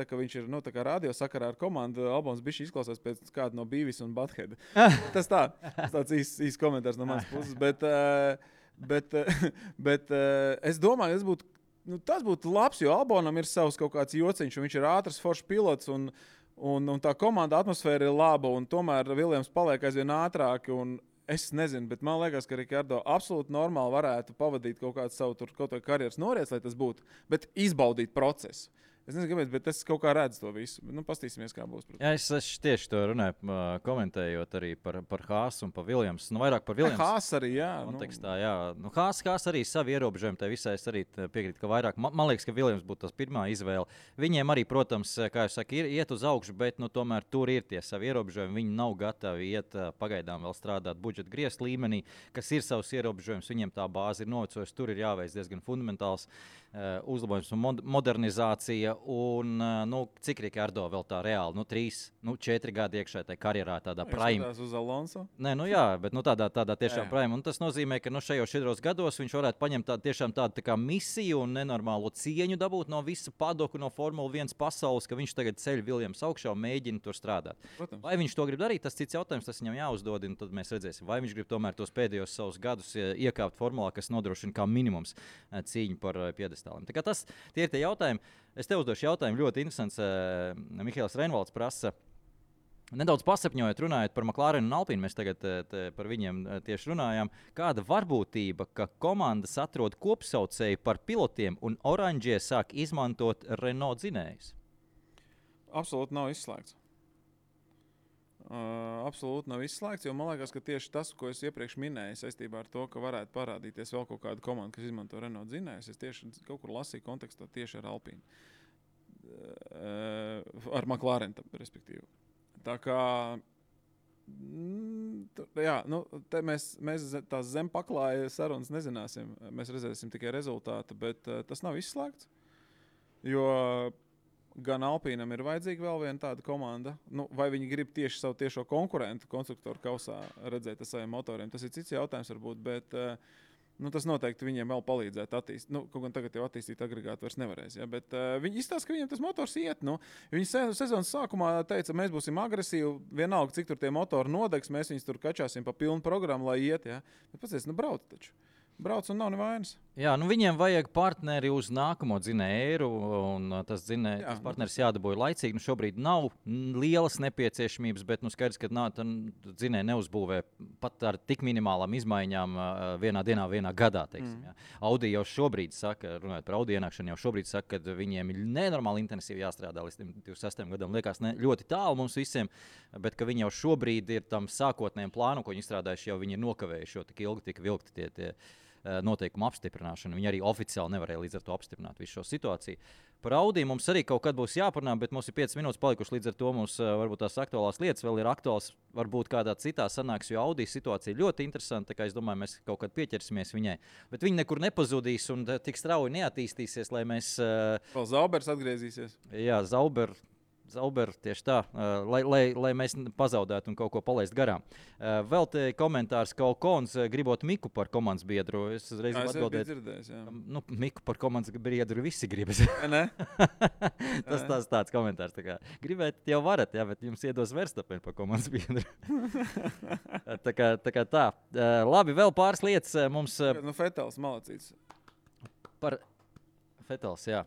[SPEAKER 3] kā viņš ir, tā kā radio sakarā ar komandu, Albons bišķiņ izklausās pēc kāda no Beavis un Butthead. Tas tāds īs komentārs no manas puses, bet es domāju, tas būtu labs, jo Albonam ir savs kaut kāds jociņš, un viņš ir ātrs, foršs pilots, un tā komanda atmosfēra ir laba, un tomēr Williams paliek aizvien ātrāk, un es nezinu, bet man liekas, ka Ricardo absolūti normāli varētu pavadīt kaut kādu savu kaut vai karjeras noriets, lai tas būtu, bet izbaudīt procesu. Es nezinu, kāpēc, bet es kaut kā redzu to visu. Pastīsimies, kā būs.
[SPEAKER 2] Jā, es tieši to runāju, komentējot arī par Haasu un par Williams. Vairāk par Williams.
[SPEAKER 3] Haas arī, jā.
[SPEAKER 2] Kontekstā, jā. Haas arī savi ierobežojumi, tai visai es arī piekrītu, ka vairāk. Man liekas, ka Williams būtu tas pirmā izvēle. Viņiem arī, protams, kā jūs saka, iet uz augšu, bet tomēr tur ir tie savi ierobežojumi. Viņi nav gatavi iet pagaidām vēl strādāt budžeta griezt līmenī, kas ir savs ierobežojums. Viņiem tā bāze ir novecojusi. Tur ir jāveic diezgan fundamentāls uzlabojums un modernizācija. Un, cik Ricardo vēl tā reāli? 3-4 gadi iekšā tajā karjerā, tādā prime.
[SPEAKER 3] Uz Alonso?
[SPEAKER 2] Nē, jā, bet tādā tiešām prime. Un tas nozīmē, ka šajos 4 gados viņš varētu paņemt tādu tā kā misiju un nenormālo cieņu dabūt no visa padoku, no Formula 1 pasaules, ka viņš tagad ceļ Williams augšā un mēģina tur strādāt.
[SPEAKER 3] Protams.
[SPEAKER 2] Vai viņš to grib darīt, tas cits jautājums, tas viņam jāuzdod, un tad mēs redzēsim, vai viņš grib tomēr tos pēdējos savus gadus iekāpt formulā, kas nodrošina kā minimums cīņu par piedestāliem. Tā kā tie ir tie jautājumi. Es tev uzdošu jautājumu, ļoti interesants. Mihails Reinvalds prasa, nedaudz pasapņojot, runājot par McLaren un Alpīnu, mēs tagad par viņiem tieši runājām. Kāda varbūtība, ka komandas atrod kopsaucēju par pilotiem un oranžie sāk izmantot Renault dzinējus?
[SPEAKER 3] Absolūti nav izslēgts. Absolūti nav izslēgts, jo man liekas, ka tieši tas, ko es iepriekš minēju saistībā ar to, ka varētu parādīties vēl kaut kāda komanda, kas izmanto Renault dzinējus, es tieši kaut kur lasīju kontekstā tieši ar Alpīnu. Ar McLaren, respektīvi. Tā kā, jā, te mēs tās zem paklāja sarunas nezināsim, mēs redzēsim tikai rezultātu, bet tas nav izslēgts, jo gan Alpīnam ir vajadzīga vēl viena tāda komanda, vai viņi grib tieši savu tiešo konkurentu konstruktoru kausā redzēt ar saviem motoriem. Tas ir cits jautājums varbūt, bet tas noteikti viņiem vēl palīdzētu attīstīt. Kaut gan tagad jau attīstīt agregātu vairs nevarēs, ja? Bet viņi izstāsta, ka viņiem tas motors iet. Viņi sezonas sākumā teica, mēs būsim agresīvi, vienalga, cik tur tie motori nodegs, mēs viņus tur kačāsim pa pilnu programmu, lai iet. Ja? Bet pats brauc taču. Brauc un nav nevainas.
[SPEAKER 2] Jā, viņiem vajag partneri uz nākamo dzinēju, un tas partneris jādabūja laicīgi. Šobrīd nav lielas nepieciešamības, bet skaidrs, ka dzinēji neuzbūvē pat ar tik minimālām izmaiņām vienā dienā, vienā gadā. Ja. Audi jau šobrīd saka, runājot par Audi ienākšanu, jau šobrīd saka, ka viņiem ir nenormāli intensīvi jāstrādā līdz 26 gadam. Liekas ļoti tālu mums visiem, bet ka viņi jau šobrīd ir tam sākotnējiem plānam, ko viņi izstrādājuši, jau viņi ir nokavējuši, jo tik ilgi tika vilkti tie noteikumu apstiprināšanu. Viņi arī oficiāli nevarēja līdz ar to apstiprināt visu šo situāciju. Par Audi mums arī kaut kad būs jāparunā, bet mums ir 5 minūtes palikuši, līdz ar to mums varbūt tās aktuālās lietas vēl ir aktuāls, varbūt kādā citā sanāks, jo Audi situācija ļoti interesanta, tā kā es domāju, mēs kaut kad pieķersimies viņai. Bet viņi nekur nepazudīs un tik strauji neattīstīsies, lai mēs...
[SPEAKER 3] Vēl Zaubers atgriezīsies.
[SPEAKER 2] Jā, Zauber, tieši tā, lai mēs pazaudētu un kaut ko palaist garām. Vēl te komentārs, ka Okons gribot Miku par komandas biedru. Es uzreiz atbildēju. Miku par komandas biedru visi gribas.
[SPEAKER 3] Ne?
[SPEAKER 2] Tas tāds komentārs. Tā kā, gribēt jau varat, jā, bet jums iedos Verstappen par komandas biedru. tā kā tā. Labi, vēl pāris lietas mums...
[SPEAKER 3] Fetels malacīts.
[SPEAKER 2] Fetels, jā.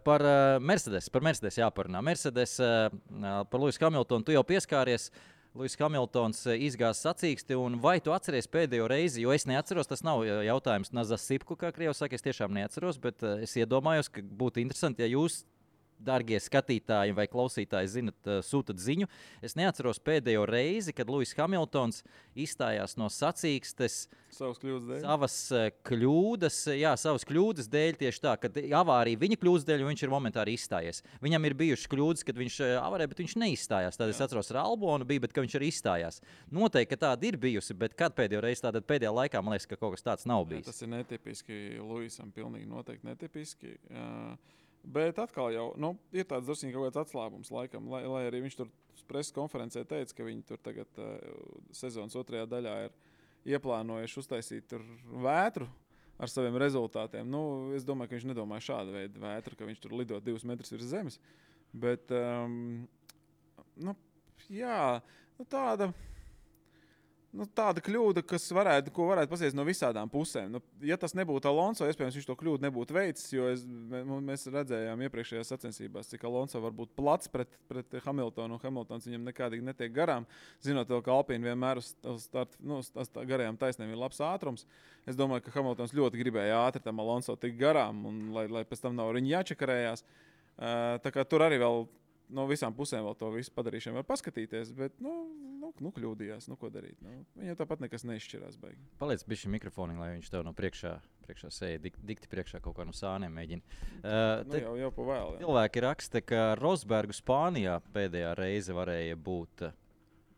[SPEAKER 2] Par Mercedes jāparunā. Mercedes, par Lewisu Hamiltonu tu jau pieskāries. Lewis Hamiltons izgāza sacīksti, un vai tu atceries pēdējo reizi, jo es neatceros, tas nav jautājums Nazas Sipku, kā Krievs saka, es tiešām neatceros, bet es iedomājos, ka būtu interesanti, ja jūs, dārgie skatītāji vai klausītāji, zinat, sūtat ziņu. Es neatceros pēdējo reizi, kad Lewis Hamiltons izstājās no sacīkstes savas kļūdas dēļ, tieši tā, kad avārija viņa kļūdas dēļ, viņš ir momentāri izstājies. Viņam ir bijušas kļūdas, kad viņš avarēja, bet viņš neizstājās. Tad es atceros, ar Albonu bija, bet ka viņš arī izstājās. Noteikti, ka tāda ir bijusi, bet kad pēdējo reizi tāda pēdējā laikā, man liekas, ka kaut kas tāds nav bijis.
[SPEAKER 3] Tas ir netipiski Lewisam, pilnīgi noteikti netipiski. Bet atkal jau ir tāds drusku kaut kāds atslābums laikam, lai arī viņš tur preses konferencē teica, ka viņi tur tagad sezonas otrajā daļā ir ieplānojuši uztaisīt tur vētru ar saviem rezultātiem. Es domāju, ka viņš nedomāja šādu veidu vētru, ka viņš tur lido 2 metrus virs zemes. Bet, tāda kļūda, ko varētu pasies no visādām pusēm. Ja tas nebūtu Alonso, iespējams, viņš to kļūdu nebūtu veicis, jo mēs redzējām iepriekšējās sacensībās, cik Alonso var būt plats pret Hamiltonu, un Hamiltons viņam nekādīgi netiek garām. Zinot, ka Alpīna vienmēr uz garajām taisnēm ir labs ātrums. Es domāju, ka Hamiltons ļoti gribēja ātri tam Alonso tik garām, un lai pēc tam nav viņa jāčakarējās. Tā kā tur arī vēl no visām pusēm vēl to visu padarīšanu var paskatīties, bet kļūdījās, ko darīt. Viņam tāpat nekas neizšķirās baigi.
[SPEAKER 2] Paliec bišķi mikrofoni, lai viņš tev no priekšā sēja, dikti priekšā kaut kā no sāniem mēģina.
[SPEAKER 3] Jau pa vēl.
[SPEAKER 2] Cilvēki raksta, ka Rosbergu Spānijā pēdējā reize varēja būt.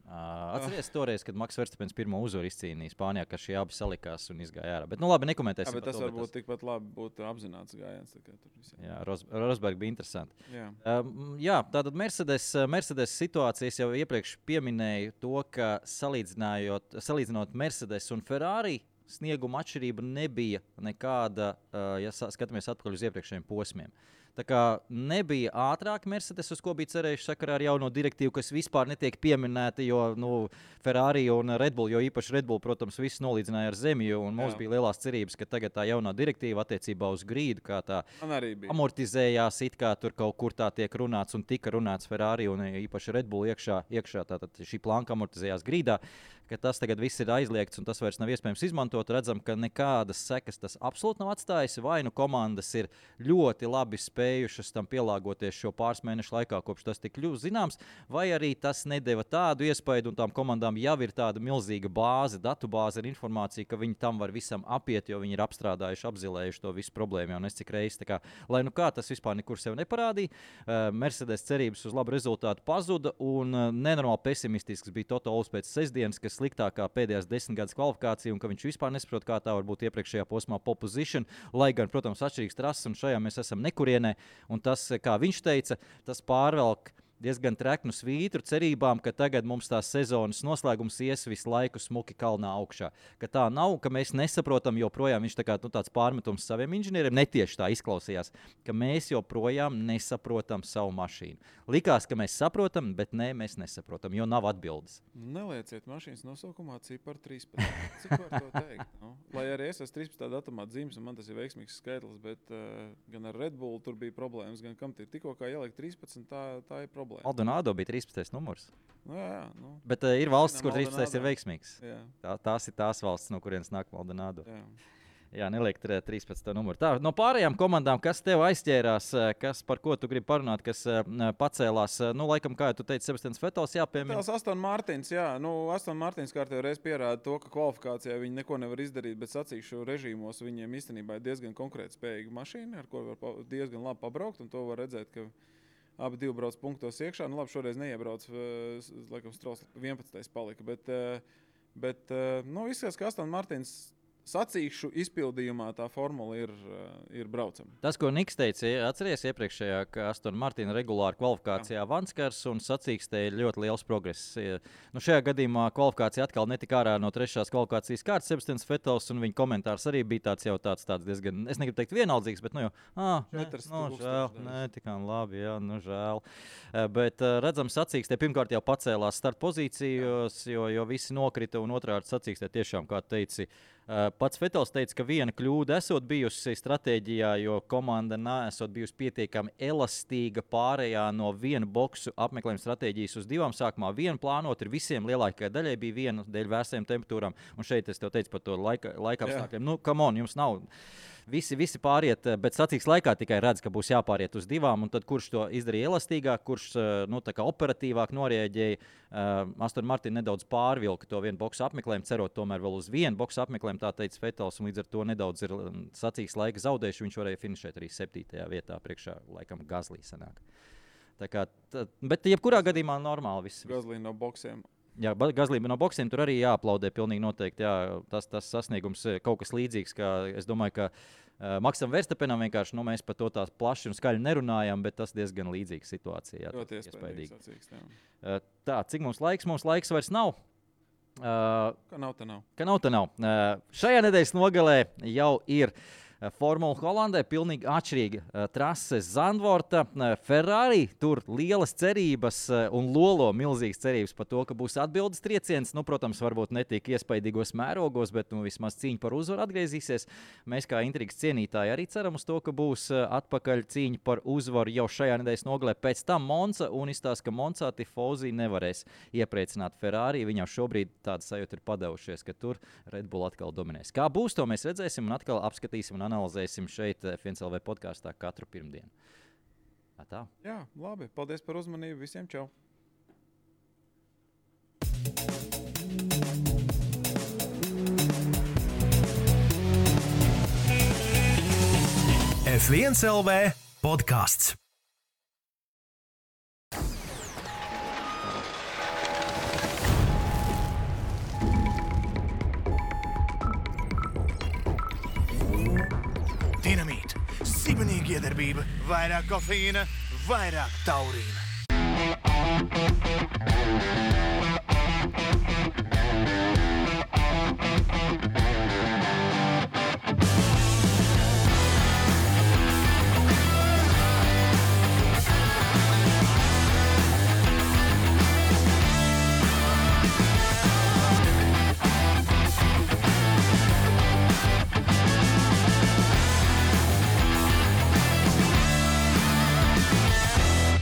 [SPEAKER 2] Atceries toreiz, kad Maks Verstapens pirmo uzvaru izcīnīja Spānijā, ka šie abi salikās un izgāja ārā. Bet, labi, nekomentēsim.
[SPEAKER 3] Bet tas varbūt tikpat labi būtu apzināts gājiens.
[SPEAKER 2] Jā, Rosberg bija interesanti.
[SPEAKER 3] Jā,
[SPEAKER 2] tātad Mercedes situācijas jau iepriekš pieminēju to, ka salīdzinot Mercedes un Ferrari, snieguma atšķirība nebija nekāda, ja skatāmies atpakaļ uz iepriekšējiem posmiem. Tā kā nebija ātrāk Mercedes, uz ko bija cerējuši sakarā ar jauno direktīvu, kas vispār netiek pieminēta, jo Ferrari un Red Bull, jo īpaši Red Bull, protams, viss nolīdzināja ar zemi, un mums bija lielās cerības, ka tagad tā jaunā direktīva attiecībā uz grīdu, kā tā amortizējās, it kā tur kaut kur tā tiek runāts un tika runāts Ferrari un īpaši Red Bull iekšā tātad šī planka amortizējās grīdā, ka tas tagad viss ir aizliegts un tas vairs nav iespējams izmantot. Redzam, ka nekādas sekas tas absolūti nav atstājis. Vai komandas ir ļoti labi spējušas tam pielāgoties šo pāris mēnešu laikā, kopš tas tika kļuvis zināms, vai arī tas nedeva tādu iespaidu un tām komandām jau ir tāda milzīga bāze, datubāze ar informāciju, ka viņi tam var visam apiet, jo viņi ir apstrādājuši, apzilējuši to visu problēmu jau nes cik reizes. Lai kā tas vispār nekur sev neparādīja, Mercedes cerības uz labu rezultātu pazuda un nenormāli pesimistisks bija Toto Wolffs pēc sestdienas, kas sliktākā pēdējās 10 gadus kvalifikācija un ka viņš vispār nesaprot, kā tā var būt iepriekšējā posmā pole position, lai gan, protams, atšķirīgs trases un šajā mēs esam nekurienē. Un tas, kā viņš teica, tas pārvelk diezgan treknu svītru cerībām, ka tagad mums tās sezonas noslēgums ies visu laiku smuki kalnā augšā. Ka tā nav, ka mēs nesaprotam joprojām, viņš tāds pārmetums saviem inženieriem, netieši tā izklausījās, ka mēs joprojām nesaprotam savu mašīnu. Likās, ka mēs saprotam, bet nē, mēs nesaprotam, jo nav atbildes.
[SPEAKER 3] Nelieciet mašīnas nosaukumā ciparu 13. Cik var to teikt? Lai arī es esmu 13. datumā dzīves, un man tas ir veiksmīgs skaitlis, bet gan ar Red Bull tur bija problēmas, gan kam tikko kā ielikt 13, tā ir problēma.
[SPEAKER 2] Maldonado bija 13. numurs.
[SPEAKER 3] Jā.
[SPEAKER 2] Bet ir valstis, kur 13. ir veiksmīgs. Tās ir tās valstis, no kurienes nāk Maldonado. Jā, neliek 13. numuru. Tā, no pārējām komandām, kas tev aizķērās, par ko tu gribi parunāt, kas pacēlās, laikam, kā tu teici, Sebastians Vettels jāpiemina.
[SPEAKER 3] Tās Aston Martins, jā. Aston Martins kārtējo reizi pierāda to, ka kvalifikācijā viņi neko nevar izdarīt, bet sacīkšu režīmos viņiem īstenībā ir diezgan konkrēti spējīga mašīna, ar ko var diezgan labi pabraukt, un to var redzēt, ka abi divi brauc punktos iekšā. Labi, šoreiz neiebrauc, laikam Strauss 11. palika, bet izskatās, ka Aston Martins sacīkšu izpildījumā tā formula ir braucama.
[SPEAKER 2] Tas, ko Niks teica, atceries iepriekšējā, ka Aston Martin regulāri kvalifikācijā vanskars un sacīkstē ir ļoti liels progress. Šajā gadījumā kvalifikācija atkal netika ārā no 3. kvalifikācijas kārtas Sebastians Vettels, un viņa komentārs arī bija tāds diezgan, es negribu teikt vienaldzīgs, bet žēl, tikām labi, žēl. Bet redzam, sacīkstē pirmkārt jau pacēlās starta pozīcijos, jo visi nokrita, un otrkārt sacīkstē tiešām, kā teici, Pats Vetels teica, ka viena kļūda esot bijusi stratēģijā, jo komanda nesot bijusi pietiekami elastīga pārējā no vienu boksu apmeklējuma stratēģijas uz divām. Sākumā vienu plānot, ir visiem lielākajai daļai bija viena dēļ vērsajām temperatūrām. Un šeit es tev teicu par to laika apstākļiem. Nu, come on, jums nav... Visi pāriet, bet sacīks laikā tikai redz, ka būs jāpāriet uz divām, un tad kurš to izdarīja elastīgāk, kurš tā kā operatīvāk norēģēja. Aston Martin nedaudz pārvilka to vienu boksu apmeklējumu, cerot tomēr vēl uz vienu boksu apmeklējumu, tā teica Vetels, un līdz ar to nedaudz ir sacīks laika zaudējuši. Viņš varēja finišēt arī 7. vietā priekšā, laikam Gazlī sanāk. Tā kā, bet jebkurā gadījumā normāli viss.
[SPEAKER 3] Gazlī no boksiem.
[SPEAKER 2] Jā, Gazlība no boksiem tur arī jāaplaudē pilnīgi noteikti. Jā, tas sasniegums kaut kas līdzīgs, kā es domāju, ka Maksam Verstapenam vienkārši, mēs par to tā plaši un skaļi nerunājam, bet tas diezgan līdzīga situācija. Jā,
[SPEAKER 3] ļoti iespējīgi.
[SPEAKER 2] Tā, cik mums laiks? Mums laiks vairs nav.
[SPEAKER 3] Ka nav,
[SPEAKER 2] tā nav. Šajā nedēļas nogalē jau ir Formula Holandē pilnīgi atšķirīga trase Zandvorta. Ferrari tur lielas cerības un lolo milzīgas cerības par to, ka būs atbildes trieciens. Protams, varbūt ne tik iespaidīgos mērogos, bet vismaz cīņa par uzvaru atgriezīsies. Mēs kā intrigas cienītāji arī ceram uz to, ka būs atpakaļ cīņa par uzvaru jau šajā nedēļas nogalē. Pēc tam Monza un izstāsta, ka Monzā Tifosi nevarēs iepriecināt Ferrari. Viņam šobrīd tāda sajūta ir padavušies, ka tur Red Bull atkal dominēs. Kā būs, to mēs redzēsim un atkal apskatīsim un analizēsim šeit FNCLV podkāstā katru pirmdienu. Tā.
[SPEAKER 3] Jā, labi. Paldies par uzmanību. Visiem čau!
[SPEAKER 1] F1CLV podkāsts. Dinamīta, sibenīga iedarbība, vairāk kofeīna, vairāk taurīna.